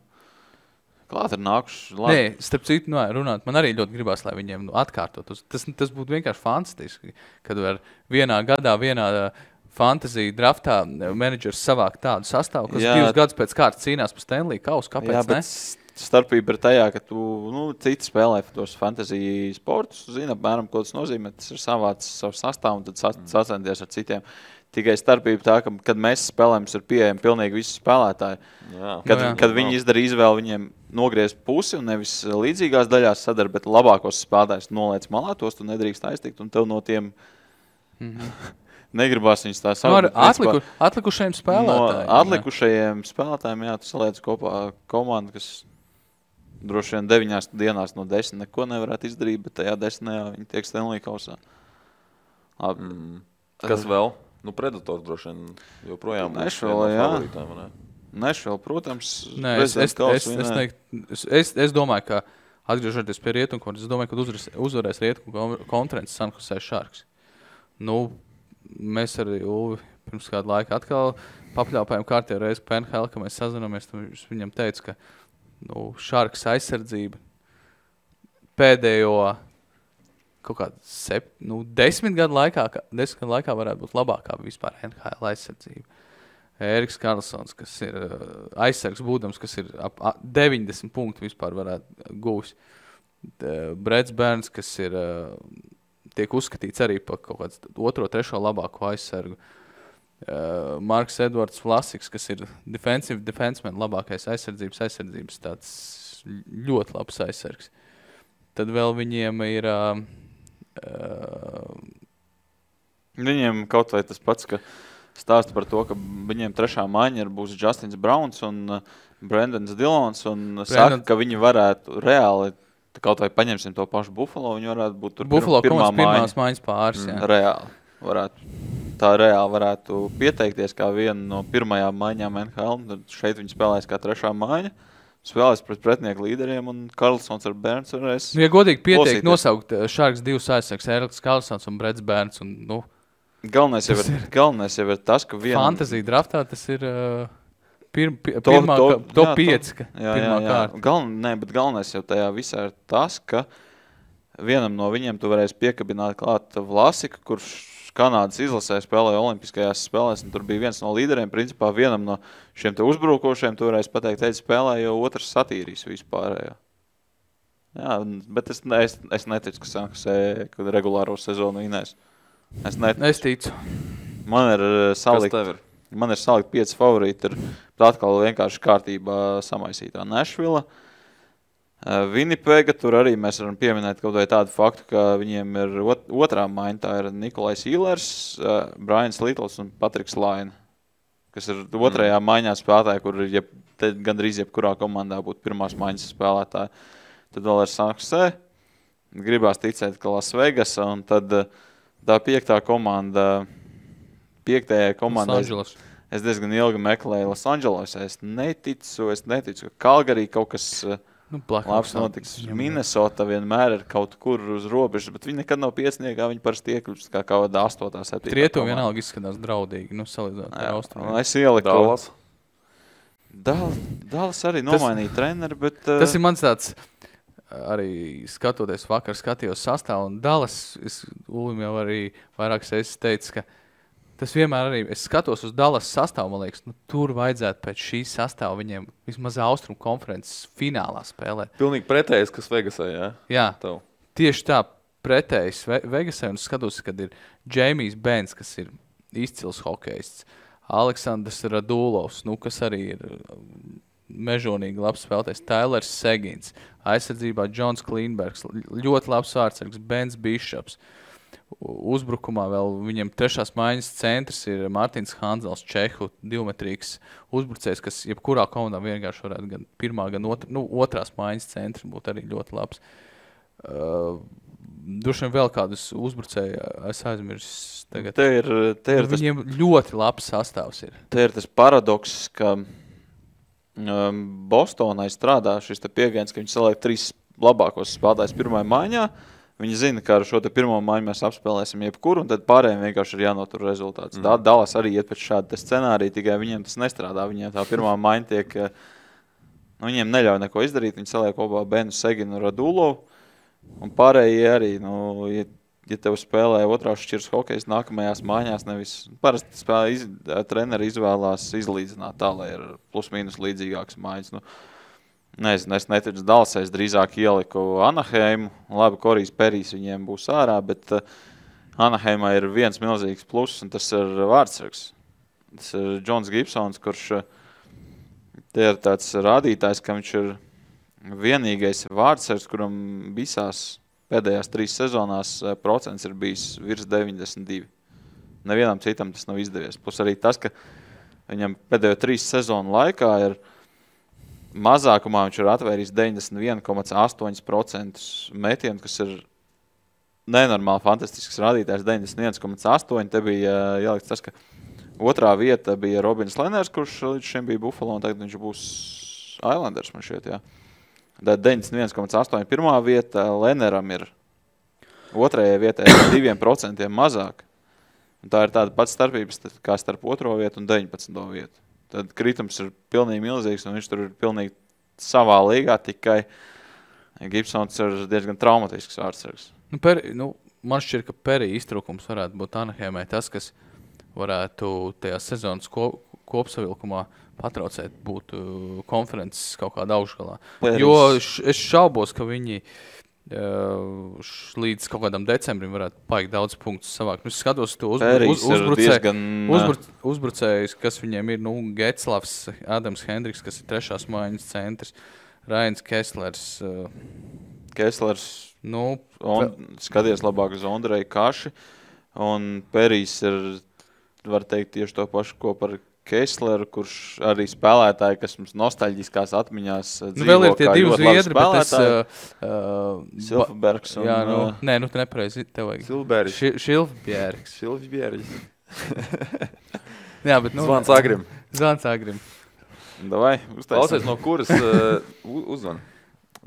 klāt ir nākuši labi. Nē, starp citu, runāt, man arī ļoti gribās, lai viņiem atkārtot. Tas būtu vienkārši fantastiski, kad var vienā gadā, vienā fantasy draftā menedžers savāk tādu sastāvu, kas 2 gadus pēc kārtas cīnās par Stanley kausu. Kāpēc ne? Starpība ir tajā, ka tu, citi spēlē tos fantasy sportus, zina, apmēram, ko tas nozīmē, tas ir savāds savu sastāvu un tad sacenties ar citiem. Tikai starpība tā, ka, kad mēs spēlējam, ir pieejami pilnīgi visi spēlētāji. Kad viņi izdara izvēli, viņiem nogriez pusi un nevis līdzīgās daļās sadara, bet labākos spēlētājus noliec malā, tos tu nedrīkst aiztikt, un tev no tiem negribās viņus tā saukt. Atlikušajiem spēlētājiem. No atlikušajiem spēlētājiem, jā, tu saliec kopā komandu, kas droši vien 9 dienās no 10 neko nevarētu izdarīt, bet tajā 10 viņi tiek Stanley kausā. Kas vēl? Nu, Predators droši vien joprojām Nešvēl, jā. Nešvēl, protams. Nē, es domāju, ka atgriežoties pie Rietumkonferences, es domāju, ka uzvarēs Rietumkonferences San Jose Sharks. Nu, mēs arī pirms kādu laiku atkal papļāpājām kārtējo reizi PNHL, ka mēs sazināmies, viņam teica, ka Sharks aizsardzība pēdējo kaut kādā 10 gadu laikā varētu būt labākā vispār NHL aizsardzība. Ēriks Karlsons, kas ir aizsargs būdams, kas ir ap 90 punktu vispār varētu gūs. Breds Bērns, kas ir tiek uzskatīts arī par kaut kāds 2. 3. labāko aizsargu. Marks Edvards Vlasiks, kas ir defensive defenseman, labākais aizsardzības tāds ļoti labs aizsargs. Tad vēl viņiem ir... Viņiem kaut vai tas pats, ka stāsta par to, ka viņiem 3. maiņa būs Justins Browns un Brendans Dillons un saka, ka viņi varētu reāli, kaut vai paņemsim to pašu Buffalo, viņi varētu būt tur pirmās maiņas pāris. Reāli varētu pieteikties kā viena no pirmajām maiņām NHL, tad šeit viņi spēlēs kā 3. maiņa. Spēlēs pret pretinieku līderiem un Karlsons ar Bērns varēs ja godīgi pieteikt, nosaukt Sharks 2 aizsargs, Ēriks Karlsons un Breds Bērns. Un, galvenais jau ir tas, ka fantasy draftā tas ir top 5 pirmā kārta. Bet galvenais jau tajā visā ir tas, ka vienam no viņiem tu varēsi piekabināt klāt Vlasika, kurš Kanādas izlasē spēlēja olimpiskajās spēlēs, un tur bija viens no līderiem. Principā vienam no šiem te uzbrukošiem tu varēsi pateikt, spēlē, jo otrs satīrīs vispārējo. Jā, bet es neticu, ka Sanksē regulāro sezonu vinēs. Es ticu. Man ir salikt 5 favorīti, ir atkal vienkārši kārtībā samaisītā Nashville. Winnipega, tur arī mēs varam pieminēt kaut vai tādu faktu, ka viņiem ir 2. maiņa, tā ir Nikolais Īlers, Brians Littles un Patriks Laine, kas ir 2. maiņā spēlētāji, kur gandrīz jebkurā komandā būtu pirmās maiņas spēlētāji. Tad vēl ir San Jose, gribās ticēt, ka Las Vegas, un tad tā 5. komanda, 5. komanda, es diezgan ilgi meklēju Los Angeles, es neticu, ka Calgary kaut kas... labs notiks. Minnesota vienmēr ir kaut kur uz robežas, bet viņi nekad nav piecniekā, viņi parasti iekļūst kā kaut kādā 8. 7. Rietumu vienalga izskatās draudīgi, salīdzināt ar Austrumiem. Es ieliku. Dallas arī nomainīja treneri, bet... Tas ir mans tāds, arī skatoties vakar, skatījos sastāvu, un Dallas, Ulim jau arī vairākas reizes teica, ka Tas vienmēr arī, es skatos uz Dallas sastāvu, man liekas, tur vajadzētu pēc šīs sastāva viņiem vismaz Austrum konferences finālā spēlēt. Pilnīgi pretējs, kas Vegasā, jā? Jā, Tev. tieši tā pretējs Vegasai, un skatos, kad ir Jamijs Benz, kas ir izcils hokejists, Aleksandrs Radulovs, kas arī ir mežonīgi labs spēlētājs, Tailers Segins, aizsardzībā Džons Klīnbergs, ļoti labs vārdsargs, Bens Bišops. Uzbrukumā vēl viņam trešās maiņas centrs ir Mārtiņš Hanzels, Čehu, divmetrīgs uzbrucējs, kas jebkurā komandā vienkārši varētu gan pirmā, gan otrās maiņas centrs būtu arī ļoti labs. Droši vien vēl kādus uzbrucēju es aizmirsu tagad. Te ir viņiem ļoti labs sastāvs ir. Te ir tas paradoks, ka Bostonai strādā šis pieejams, ka viņi saliek 3 labākos spēlētājus pirmajā maiņā. Viņi zina, ka ar šo pirmo maiņu mēs apspēlēsim jebkuru, un tad pārējiem vienkārši ir jānotur rezultāts. Dallas arī iet pēc šāda scenārija, tikai viņiem tas nestrādā. Viņiem tā pirmā maiņa tiek, viņiem neļauj neko izdarīt. Viņi saliek kopā Benu Seginu un Radulovu, un pārējie arī, ja tev spēlē otrās šķiras hokejs nākamajās maiņās, nevis parasti treneri izvēlās izlīdzināt tā, lai ir plus mīnus līdzīgākas maiņas. Nezinu, es neticu Dallasai, es drīzāk ieliku Anaheimu. Labi, Korijs Perijs viņiem būs ārā, bet Anaheimā ir viens milzīgs pluss, un tas ir vārdsargs. Tas ir Džons Gibsons, kurš te ir tāds rādītājs, ka viņš ir vienīgais vārdsargs, kuram visās pēdējās 3 sezonās procents ir bijis virs 92. Nevienam citam tas nav izdevies. Plus arī tas, ka viņam pēdējo 3 sezonu laikā ir mazākumā viņš ir atvērījis 91,8% metienu, kas ir nenormāli fantastisks rādītājs, 91,8%. Te bija jālikts tas, ka otrā vieta bija Robins Leners, kurš līdz šim bija Buffalo, un tagad viņš būs Islanders, man šeit, jā. Tad 91,8% pirmā vieta, Leneram ir otrajai vietai 2% mazāk. Un tā ir tāda pats starpības kā starp otro vietu un 19. vietu. Tad kritums ir pilnīgi milzīgs, un viņš tur ir pilnīgi savā līgā, tikai Gibsons ir diezgan traumatisks vārdsargs. Man šķiet, ka Perija iztrūkums varētu būt Anaheimai tas, kas varētu tajā sezonas kopsavilkumā patraucēt būt konferences kaut kādā augšgalā. Jo es šaubos, ka viņi līdz kaut kādam decembrim varētu paigt daudz punktus savākt. Es skatos to uzbrucējus, kas viņiem ir, Getslavs, Adams Hendriks, kas ir trešās maiņas centrs, Rains Kesslers. Skaties labāk uz Ondreju Kaši, un Perijs ir, var teikt, tieši to pašu, ko par Kessleru, kurš arī spēlētāji, kas mums nostalģiskās atmiņās dzīvo, vēl ir tie divi zviedri, bet es... Silfbergs un... Jā, tu nepareizi, tev vajag. Šilfbjergs. Jā, bet... Zvans Agrim. Davai, uztaisam. Klausies, no kuras... uzvan.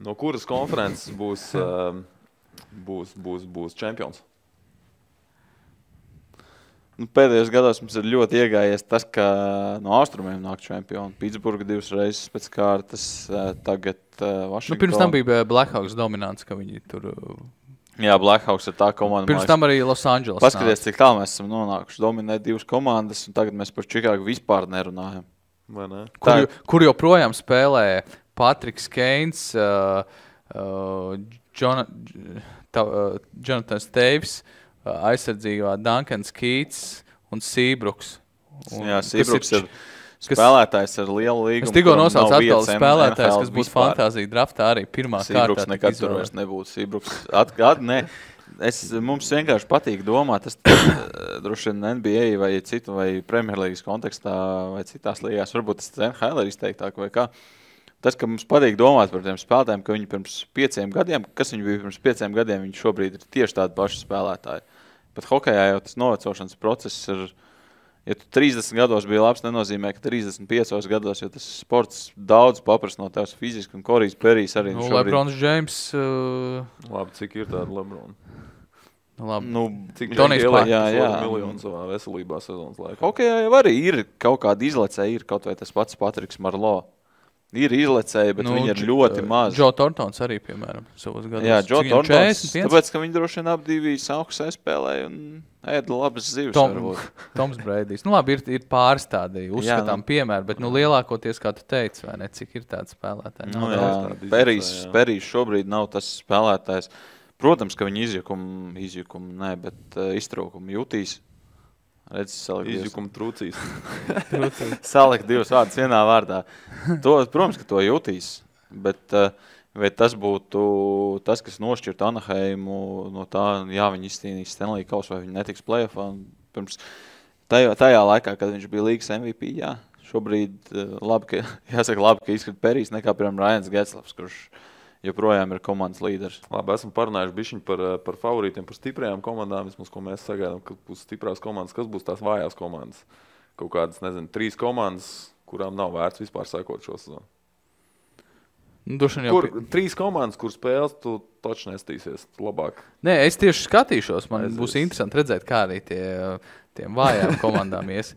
No kuras konferences būs čempions? Pēdējos gados mums ir ļoti iegājies tas, ka no austrumiem nāk čempioni. Pitsburga 2 reizes pēc kārtas, tagad Washington. Pirms tam bija Blackhawks dominants, ka viņi tur... Jā, Blackhawks ir tā komanda. Pirms tam arī Los Angeles. Paskaties, cik tālu mēs esam nonākuši. Dominē 2 komandas, un tagad mēs par Čikāgu vispār nerunājam. Vai ne? Kur joprojām spēlē Patriks Keins, Jonathan Staves, aizsardzībā Duncans Keats un Seabruks. Jā, Seabruks ir spēlētājs ar lielu līgumu. Es tikko nosaucu atkal spēlētājs, kas būs fantāzija draftā arī pirmā kārtā. Seabruks nekad tur vairs nebūtu. Seabruks mums vienkārši patīk domāt, tas droši vien NBA vai citu vai Premjerlīgas kontekstā vai citās līgās, varbūt tas NHL ir izteiktāk vai kā. Tas, ka mums patīk domāt par tiem spēlētājiem, ka viņi pirms 5 gadiem, kas viņi bija pirms 5 gadiem, viņi šobrīd ir tieši tādi paši spēlētāji. Bet hokejā jau tas novecošanas process ir, ja tu 30 gados bija labs, nenozīmē, ka 35 gados, jo tas sports daudz paprast no tevs fiziski, un Korijs Perijs arī šobrīd. Lebrons James. Labi, cik ir tāda Lebrona? Cik Tonijs miljonu savā veselībā sezonas laikā? Hokejā jau arī ir kaut kāda izlecē, ir kaut vai tas pats Patriks Marlo. Ir izlecēji, bet viņi ir ļoti maz. Joe Thorntons arī, piemēram, savos gados. Jā, Joe Thorntons, 41? tāpēc, ka viņi droši vien apdīvi sauksē spēlēja un ēda labas zivis. Toms Breidijs. Nu labi, ir pāris tādi uzskatām piemēri, bet lielākoties, kā tu teici, vai ne, cik ir tādi spēlētāji? Perijs šobrīd nav tas spēlētājs. Protams, ka viņi izjukumu, bet iztraukumu jutīs. Izjukuma trūcīs. Salikt divus vārdus vienā vārdā. Protams, ka to jutīs, bet vai tas būtu tas, kas nošķirtu Anaheimu no tā, viņi izcīnīs Stanley Kausu vai viņi netiks play-offā. Pirms tajā laikā, kad viņš bija līgas MVP, šobrīd labi, ka izskat Perijs nekā, piemēram, Ryans Getzlafs, kurš joprojām ir komandas līderis. Labi, esam parunājuši bišķiņ par favorītiem, par stiprajām komandām, vismaz, ko mēs sagaidām, ka būs stiprās komandas, kas būs tās vājās komandas. Kaut kādas, 3 komandas, kurām nav vērts vispār sekot šo sezonu. 3 komandas, kur spēles, tu taču nestīsies labāk. Nē, es tieši skatīšos, būs interesanti redzēt, kā arī tiem vājām komandām ies.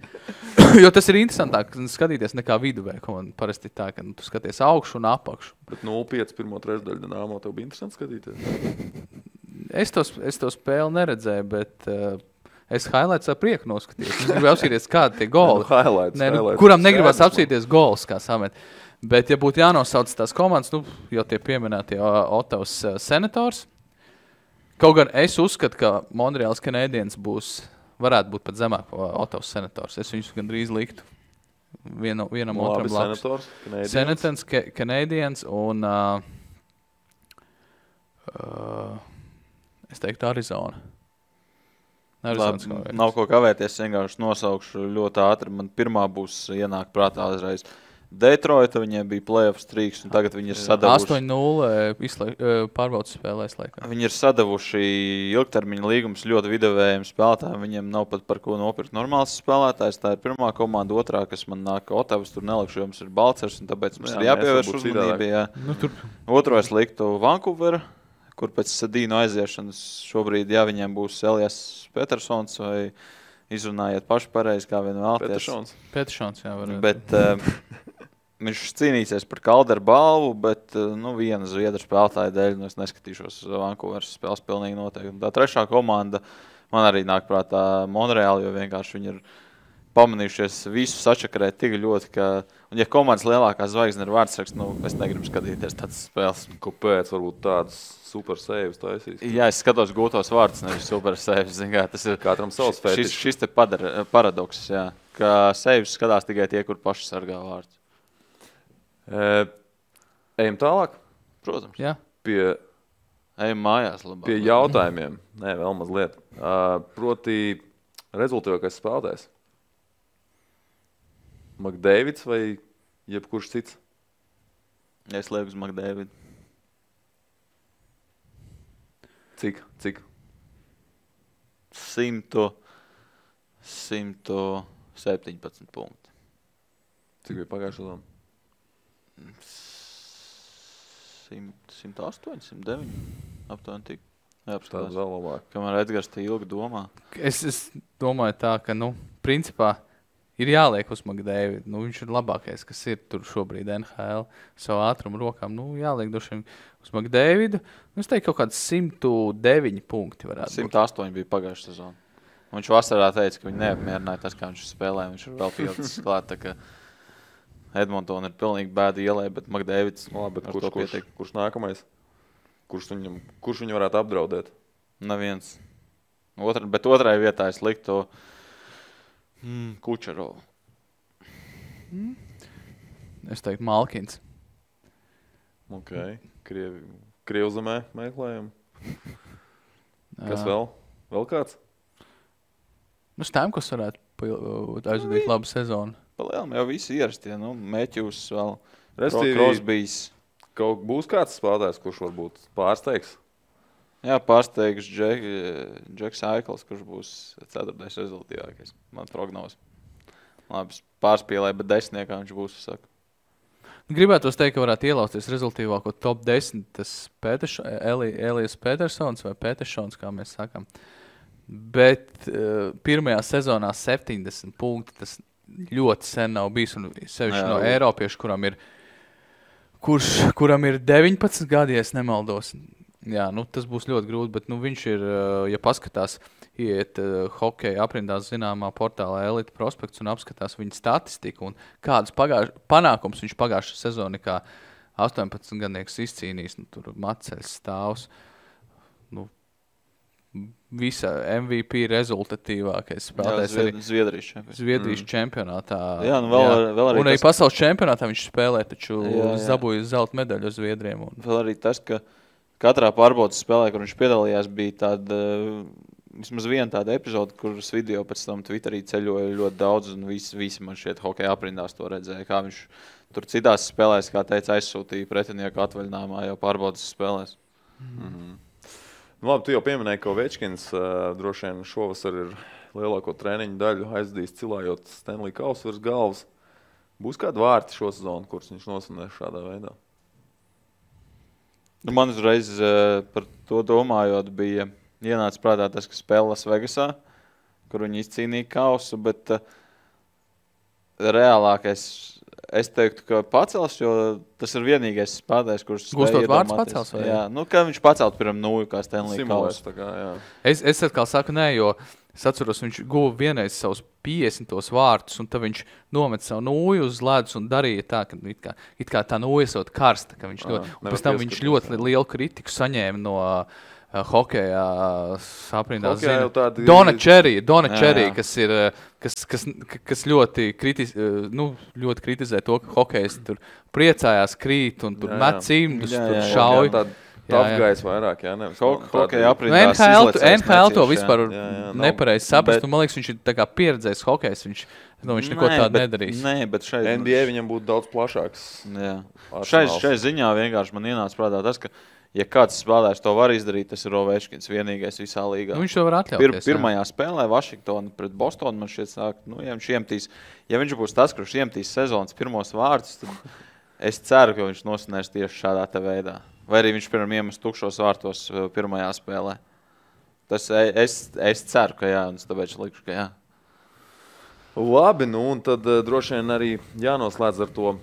Jo tas ir interesantāk skatīties nekā viduvēja komanda. Parasti tā, ka tu skaties augšu un apakšu. Bet 0-5 pirmo trešdaļu Dinamo tev bija interesanti skatīties? Es to spēli neredzēju, bet es highlights ar prieku noskatījos. Es gribēju apsīties, kādi tie goli. Kuram negribas apsīties gols, kā samet. Bet, ja būtu jānosauc tās komandas, jau tie pieminētie Ottavas Senators, kaut gan es uzskatu, ka Montreals Canadiens varētu būt pat zemāk Ottavas Senators. Es viņus gandrīz liktu vienam otram blakus. Senators, Canadiens un es teiktu Arizona. Labi, nav ko kavēties, vienkārši nosaukšu ļoti ātri. Man pirmā būs ienāk prātā uzreiz. Detroita, viņiem bija play-off streaks, un tagad viņi ir sadavuši... 8-0 pārbaudas spēlēs laikā. Viņi ir sadavuši ilgtermiņa līgumus ļoti vidavējiem spēlētājiem. Viņiem nav pat par ko nopirkt normāls spēlētājs. Tā ir pirmā komanda, otrā, kas man nāk Ottavas, tur nelikšu, jo mums ir Balcers, un tāpēc mums ir jāpievērš uzmanība. Otro es liktu Vancouver, kur pēc Sadīnu aiziešanas šobrīd, viņiem būs Elias Petersons, vai izrunājiet paši pareizi, kā vien vēlties. Petersons, jā, varētu. Bet... Viņš cīnīsies par Calderu balvu, bet viena zviedru spēlētāja dēļ es neskatīšos uz Vancouveras spēles pilnīgi noteikti. Tā trešā komanda man arī nāk prātā Montreal, jo vienkārši viņi ir pamanījušies visu sačakarēt tik ļoti, ka... Un ja komandas lielākā zvaigzne ir vārdsraksts, es negribu skatīties tādas spēles. Kāpēc varbūt tādas super saves taisīs? Jā, es skatos gūtos vārdus, nevis super saves. Tas ir katram savs fetišs. Šis te paradoks, ka saves skatās tikai tie, kur paši sargā vārdus. Ejam tālāk? Protams. Jā. Ejam mājās labāk. Pie jautājumiem. Nē, vēl mazliet. Proti rezultātīvākais spēlētājs. McDavids vai jebkurš cits? Es lieku uz McDavidu. Cik? 117 punkti. Cik bija pagājušā sezona? 108, 109. Aptuveni tik. Tāds vēl labāk. Kamēr Edgars te ilgi domā. Es domāju tā, ka, principā ir jāliek uz McDavidu. Viņš ir labākais, kas ir tur šobrīd NHL. Savu ātrumu rokām. Jāliek došiem uz McDavidu. Es teiktu, kaut kāds 109 punkti varētu 108 bija pagājušā sezona. Viņš vasarā teica, ka viņi neapmierināja tas, kā viņš spēlē. Viņš ir vēl pieaudzis klāt, tā ka Edmonton ir pilnīgi bēda ielē, bet McDavids... Kurš nākamais? Kurš viņu varētu apdraudēt? Neviens. Bet otrai vietā es liktu Kučerovu. Es teiktu Malkins. Ok. Krievzemē meklējam. Kas vēl? Vēl kāds? Stamkos varētu aizvadīt labu sezonu. Palielam jau visi ierastie, Matthews vēl, Crosbys. Kaut būs kāds spēlētājs, kurš varbūt pārsteigs? Jā, pārsteigs Džeks Aikls, kurš būs 4. rezultātīvākais. Man prognoze. Labi, pārspīlēja, bet 10. viņš būs, saka. Gribētos teikt, ka varētu ielausties rezultīvāko top 10, tas Elias Petersons vai Petersons, kā mēs sakam. Bet pirmajā sezonā 70 punkti, tas ļoti sen nav bijis, un sevišķi no Eiropiešu, kuram ir kuram ir 19 gadi, ja es nemaldos. Jā, tas būs ļoti grūti, bet viņš ir, ja paskatās, iet hokeja aprindās zināmā portālā Elite Prospekts un apskatās viņa statistiku un kādus panākums viņš pagājušā sezonā kā 18 gadnieks izcīnījis, tur Maceļs stāvs, visa MVP rezultatīvākais spēlētājs Zviedrijas čempionātā. Jā, vēl arī un arī pasaules čempionātā viņš spēlē, taču zabūja zelta medaļu uz Zviedriem. Vēl arī tas, ka katrā pārbaudas spēlē, kur viņš piedalījās, bija tāda, vismaz viena tāda epizode, kuras video pēc tam Twitterī ceļoja ļoti daudz, un visi man šeit hokeja aprindās to redzēja, kā viņš tur citās spēlēs, kā teica, aizsūtīja pretinieku atvaļinājumā jau pārbaudas spēlēs. Labi, tu jau pieminēji, ka Ovečkins droši vien šovasar ir lielāko treniņu daļu aizdījis cilājot Stanley Kausu virs galvas. Būs kādi vārti šo sezonu, kurus viņš nosvinēs šādā veidā? Man uzreiz par to domājot bija ienācis prātā tas, ka spēlē Las Vegasā, kur viņi izcīnīja Kausu, bet reālākais es teiktu, ka pacels, jo tas ir vienīgais spēlētājs, kurš Gustot vārds pacels? Vai? Jā, ka viņš pacelt pirmam nūju, kā Stanley Kausu. Es atkal saku nē, jo es atceros, viņš guva vienreiz savus 50 vārtus, un tad viņš nomet savu nūju uz ledus un darīja tā, ka it kā tā nūja esot karsta, ka viņš un pēc tam viņš ļoti lielu kritiku saņēma no hokeja aprindās zina. Donna Cherry, kas ļoti kritizē to, ka hokejs tur priecājās, krīt un tur met cimdus, tur šauj. Apgājis vairāk, nevis hokeja aprindās izlecējis. NHL to vispār nepareizi saprast, un man liekas, viņš ir tā kā pieredzējis hokejs, viņš neko tādu nedarīs. Nē, bet šeit NBA viņam būtu daudz plašāks. Šai ziņā vienkārši man ienāca prātā tas, ka ja kāds spēlētājs to var izdarīt, tas ir Ovečkins, vienīgais visā līgā. Viņš to var atļauties. Pirmajā spēlē Vašingtona pret Bostonu man šķiet sāk, ja viņš būs tas, kurš iemetīs sezonas pirmos vārtus, tad es ceru, ka viņš nosinēs tieši šādā te veidā. Vai arī viņš pirmam iemest tukšos vārtos pirmajā spēlē. Tas es ceru, ka jā, un tāpēc likšu, ka jā. Labi, un tad droši vien arī jānoslēdz ar to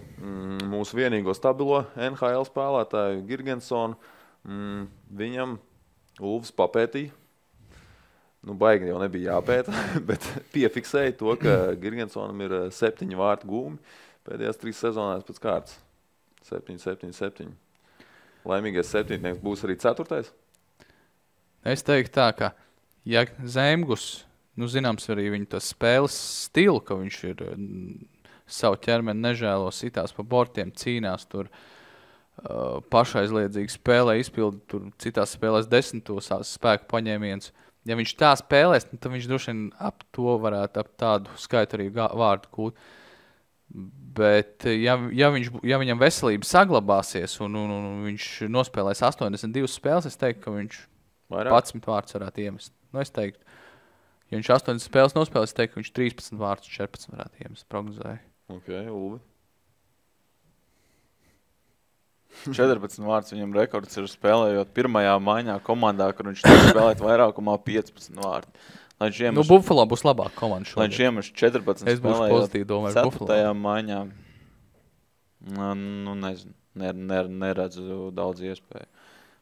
mūsu vienīgo stabilo NHL spēlētāju Girgensonu. Viņam Ulfs papētīja. Baigi jau nebija jāpēta, bet piefiksēja to, ka Girgensonam ir 7 vārtu gūmi pēdējās 3 sezonās pēc kārtas. 7. Laimīgais 7. būs arī 4. Es teiktu tā, ka ja Zemgus, zināms arī viņa tas spēles stilu, ka viņš ir savu ķermeni nežēlo, sitās pa bortiem, cīnās tur pašaizliedzīgi spēlē, izpilda tur citās spēlēs 10 spēku paņēmienus. Ja viņš tā spēlēs, tad viņš droši vien ap to varētu ap tādu skaitu arī vārdu kūt. Bet ja viņam veselība saglabāsies un viņš nospēlēs 82 spēles, es teiktu, ka viņš 11 vārtus varētu iemest. Es teiktu, ja viņš 80 spēles nospēlēs, es teiktu, ka viņš 13 vārtus 14 varētu iemest, prognozēju. Ok, Ulvi. 14 vārtus viņam rekords ir spēlējot pirmajā maiņā komandā, kur viņš spēlēt vairākumā 15 vārtu. Buffalo būs labāk komanda šodien. Lai viņš iemest 14 es būšu pozitīvi domāju Buffalo. 4. maiņā. Nezinu. Neredzu daudz iespēju.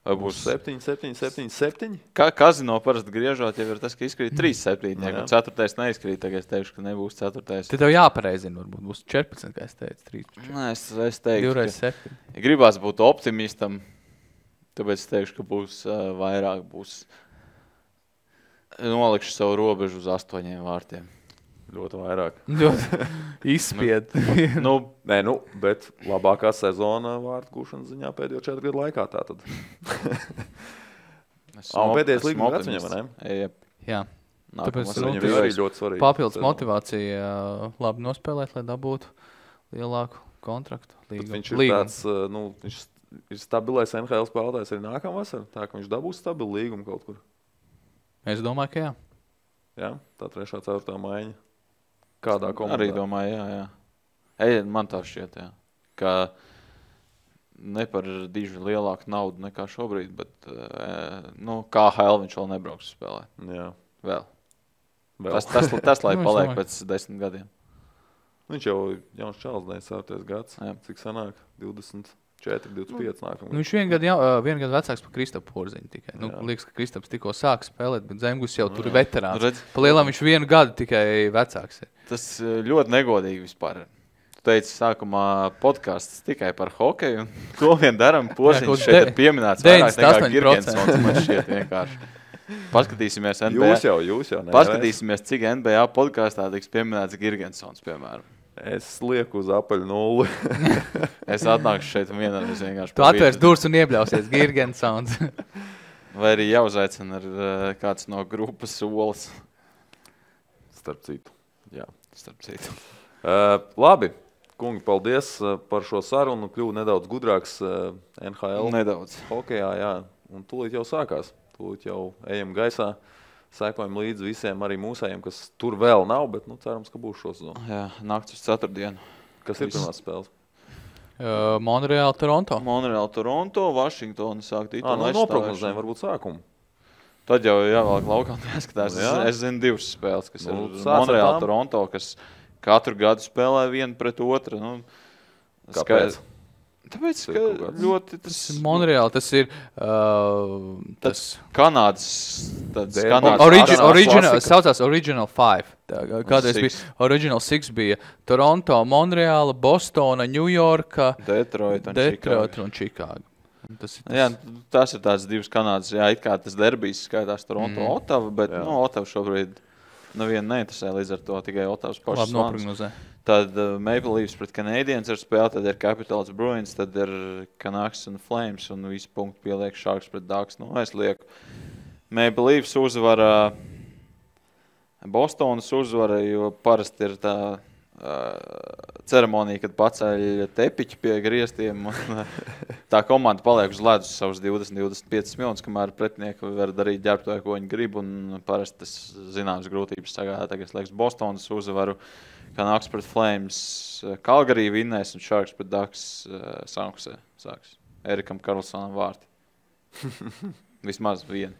Vai būs 7? Kazino parasti griežot, jau ir tas, ka izkrīt 3-7. Ja 4. neizkrīt, tagad es teikšu, ka nebūs 4. Tad tev jāpareizina, varbūt būs 14, kā es teicu, 13. Es teiktu, 2x7. Ja gribās būt optimistam, tāpēc es teikšu, ka būs vairāk, nolikšu savu robežu uz 8 vārtiem. Ļoti vairāk. Izspied. Bet labākā sezona vārtu gūšanas ziņā pēdējo 4 gadu laikā tātad. Pēdējais līguma gads viņam, vai ne? Jā. Tāpēc viņam ir arī ļoti svarīgi. Papildus motivācija labi nospēlēt, lai dabūtu lielāku kontraktu. Viņš ir tāds, viņš ir stabilais NHL spēlētājs arī nākamā vasarā, tā ka viņš dabūs stabilu līgumu kaut kur. Es domāju, ka jā. Jā, tā 3. 4. maiņa. Kādā komandā? Arī domāju, jā. Man tā šķiet, jā. Ka ne par diži lielāku naudu nekā šobrīd, bet KHL viņš vēl nebrauks spēlē. Jā. Vēl. Tas lai paliek pēc 10 gadiem. Viņš jau jauns čals, 9. gads. Jā. Cik sanāk? 20. 4-25 nākamā. Viņš vienu gadu vecāks par Kristapu Porziņu tikai. Liekas, ka Kristaps tikko sāk spēlēt, bet Zemgus jau tur ir veterāns. Pa lielam viņš vienu gadu tikai vecāks ir. Tas ļoti negodīgi vispār. Tu teici sākumā podcasts tikai par hokeju, un to vien daram. Porziņš šeit ir pieminēts vairāk nekā Girgensons, man šķiet vienkārši. Paskatīsimies NBA. Jūs jau. Paskatīsimies, cik NBA podkastā tiks pieminēts Girgensons, piemēram. Es lieku uz apaļu 0. Es atnākšu šeit vienreiz vienkārši. Tu atvērs durvis un iebļausies Girgensons. Vai arī jāuzaicina ar kāds no grupas solis. Starp citu. Jā. Starp citu. Labi. Kungi, paldies par šo sarunu. Kļuvu nedaudz gudrāks NHL. Nedaudz. Hokejā, jā. Un tūlīt jau sākās. Tūlīt jau ejam gaisā. Sekojam līdzi visiem, arī mūsējiem, kas tur vēl nav, bet cerams, ka būs šo sezonu. Jā, nakts uz 4. Kas ir pirmās spēles? Montreal, Toronto. Montreal, Toronto, Vašingtona sāk titulu. Noprognozējam varbūt sākumu. Tad jau jāvēlāk laukā jāskatās. Es zinu 2 spēles, kas ir Montreal, Toronto, kas katru gadu spēlē vienu pret otru. Kāpēc? Tāpēc, ka ļoti tas... Montreal, tas ir... tas Kanādas... Saucās Original 5. Kādreiz bija Original 6 bija Toronto, Montreal, Bostona, Ņujorka, Detroit un Čikāga. Tas ir tāds 2 Kanādas, it kā tas derbijs skaitās Toronto, Ottava, bet Ottava šobrīd nevienu neinteresē, līdz ar to tikai Ottavas pašas noprognozē. Tad Maple Leafs pret Canadiens ir spēle, tad ir Capitals Bruins, tad ir Canucks un Flames, un visu punktu pieliek Sharks pret Ducks. Es lieku Maple Leafs uzvara, Bostonas uzvara, jo parasti ir tā ceremonija, kad paceļ tepiķi pie griestiem, un tā komanda paliek uz ledus savus 20-25 minūtes, kamēr pretinieki var darīt ģērbtoju, ko viņi grib, un parasti tas zināmas grūtības sagādā. Tagad liekas Bostonas uzvaru, Canucks pret Flames, Calgary vinnēs un Sharks pret Ducks Sankusē sāks. Erikam Karlsonam vārti. Vismaz vieni.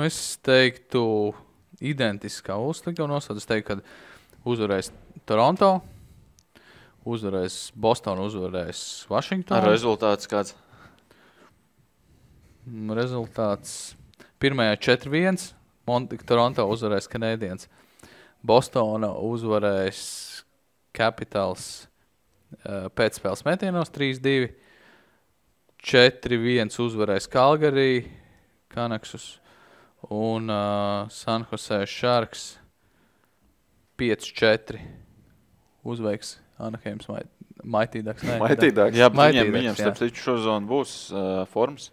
Es teiktu identiskā uzslikta un nosauc. Es teiktu, ka uzvarēs Toronto, uzvarēs Boston, uzvarēs Washington. Rezultāts kāds? Rezultāts pirmajā 4-1, Toronto uzvarēs Canadiens. Bostona uzvarēs Capitals pēcspēles metienos 3-2, 4-1 uzvarēs Calgary, Canucks un San Jose Sharks 5-4 uzveiks Anaheims Mighty Ducks. Mighty Ducks. Jā, viņam starp citu šozonu būs formas.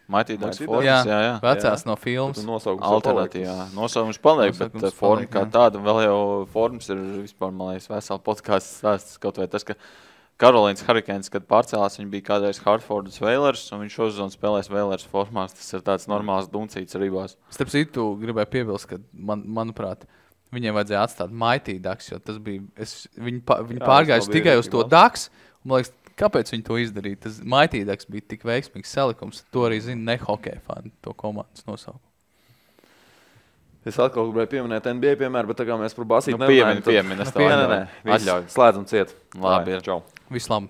Mighty Ducks formas, jā. Vecās no filmas. Alternatīvā. Nosaukums paliek, bet forma kā tāda, vēl jau formas ir vispār, man liekas, vesela podcasts stāsts, kaut vai tas, ka Karolīnas Hurricanes, kad pārcēlās, viņi bija kādreiz Hartfordas Whalers, un viņš šozonu spēlēs Whalers formās. Tas ir tāds normāls duncīts rībās. Starp citu, gribēju piebilst, ka, manuprāt, viņiem vajadzēja atstāt Mighty Ducks, jo tas bija, viņi pārgājuši tikai uz to Ducks, un, man liekas, kāpēc viņi to izdarīja? Tas Mighty Ducks bija tik veiksmīgs salikums, to arī zina ne hokeja fani, to komandas nosaukumu. Es atkal gribēju pieminēt NBA piemēru, bet tā kā mēs par basību piemini. Slēdzam ciet. Labi, Visu labi.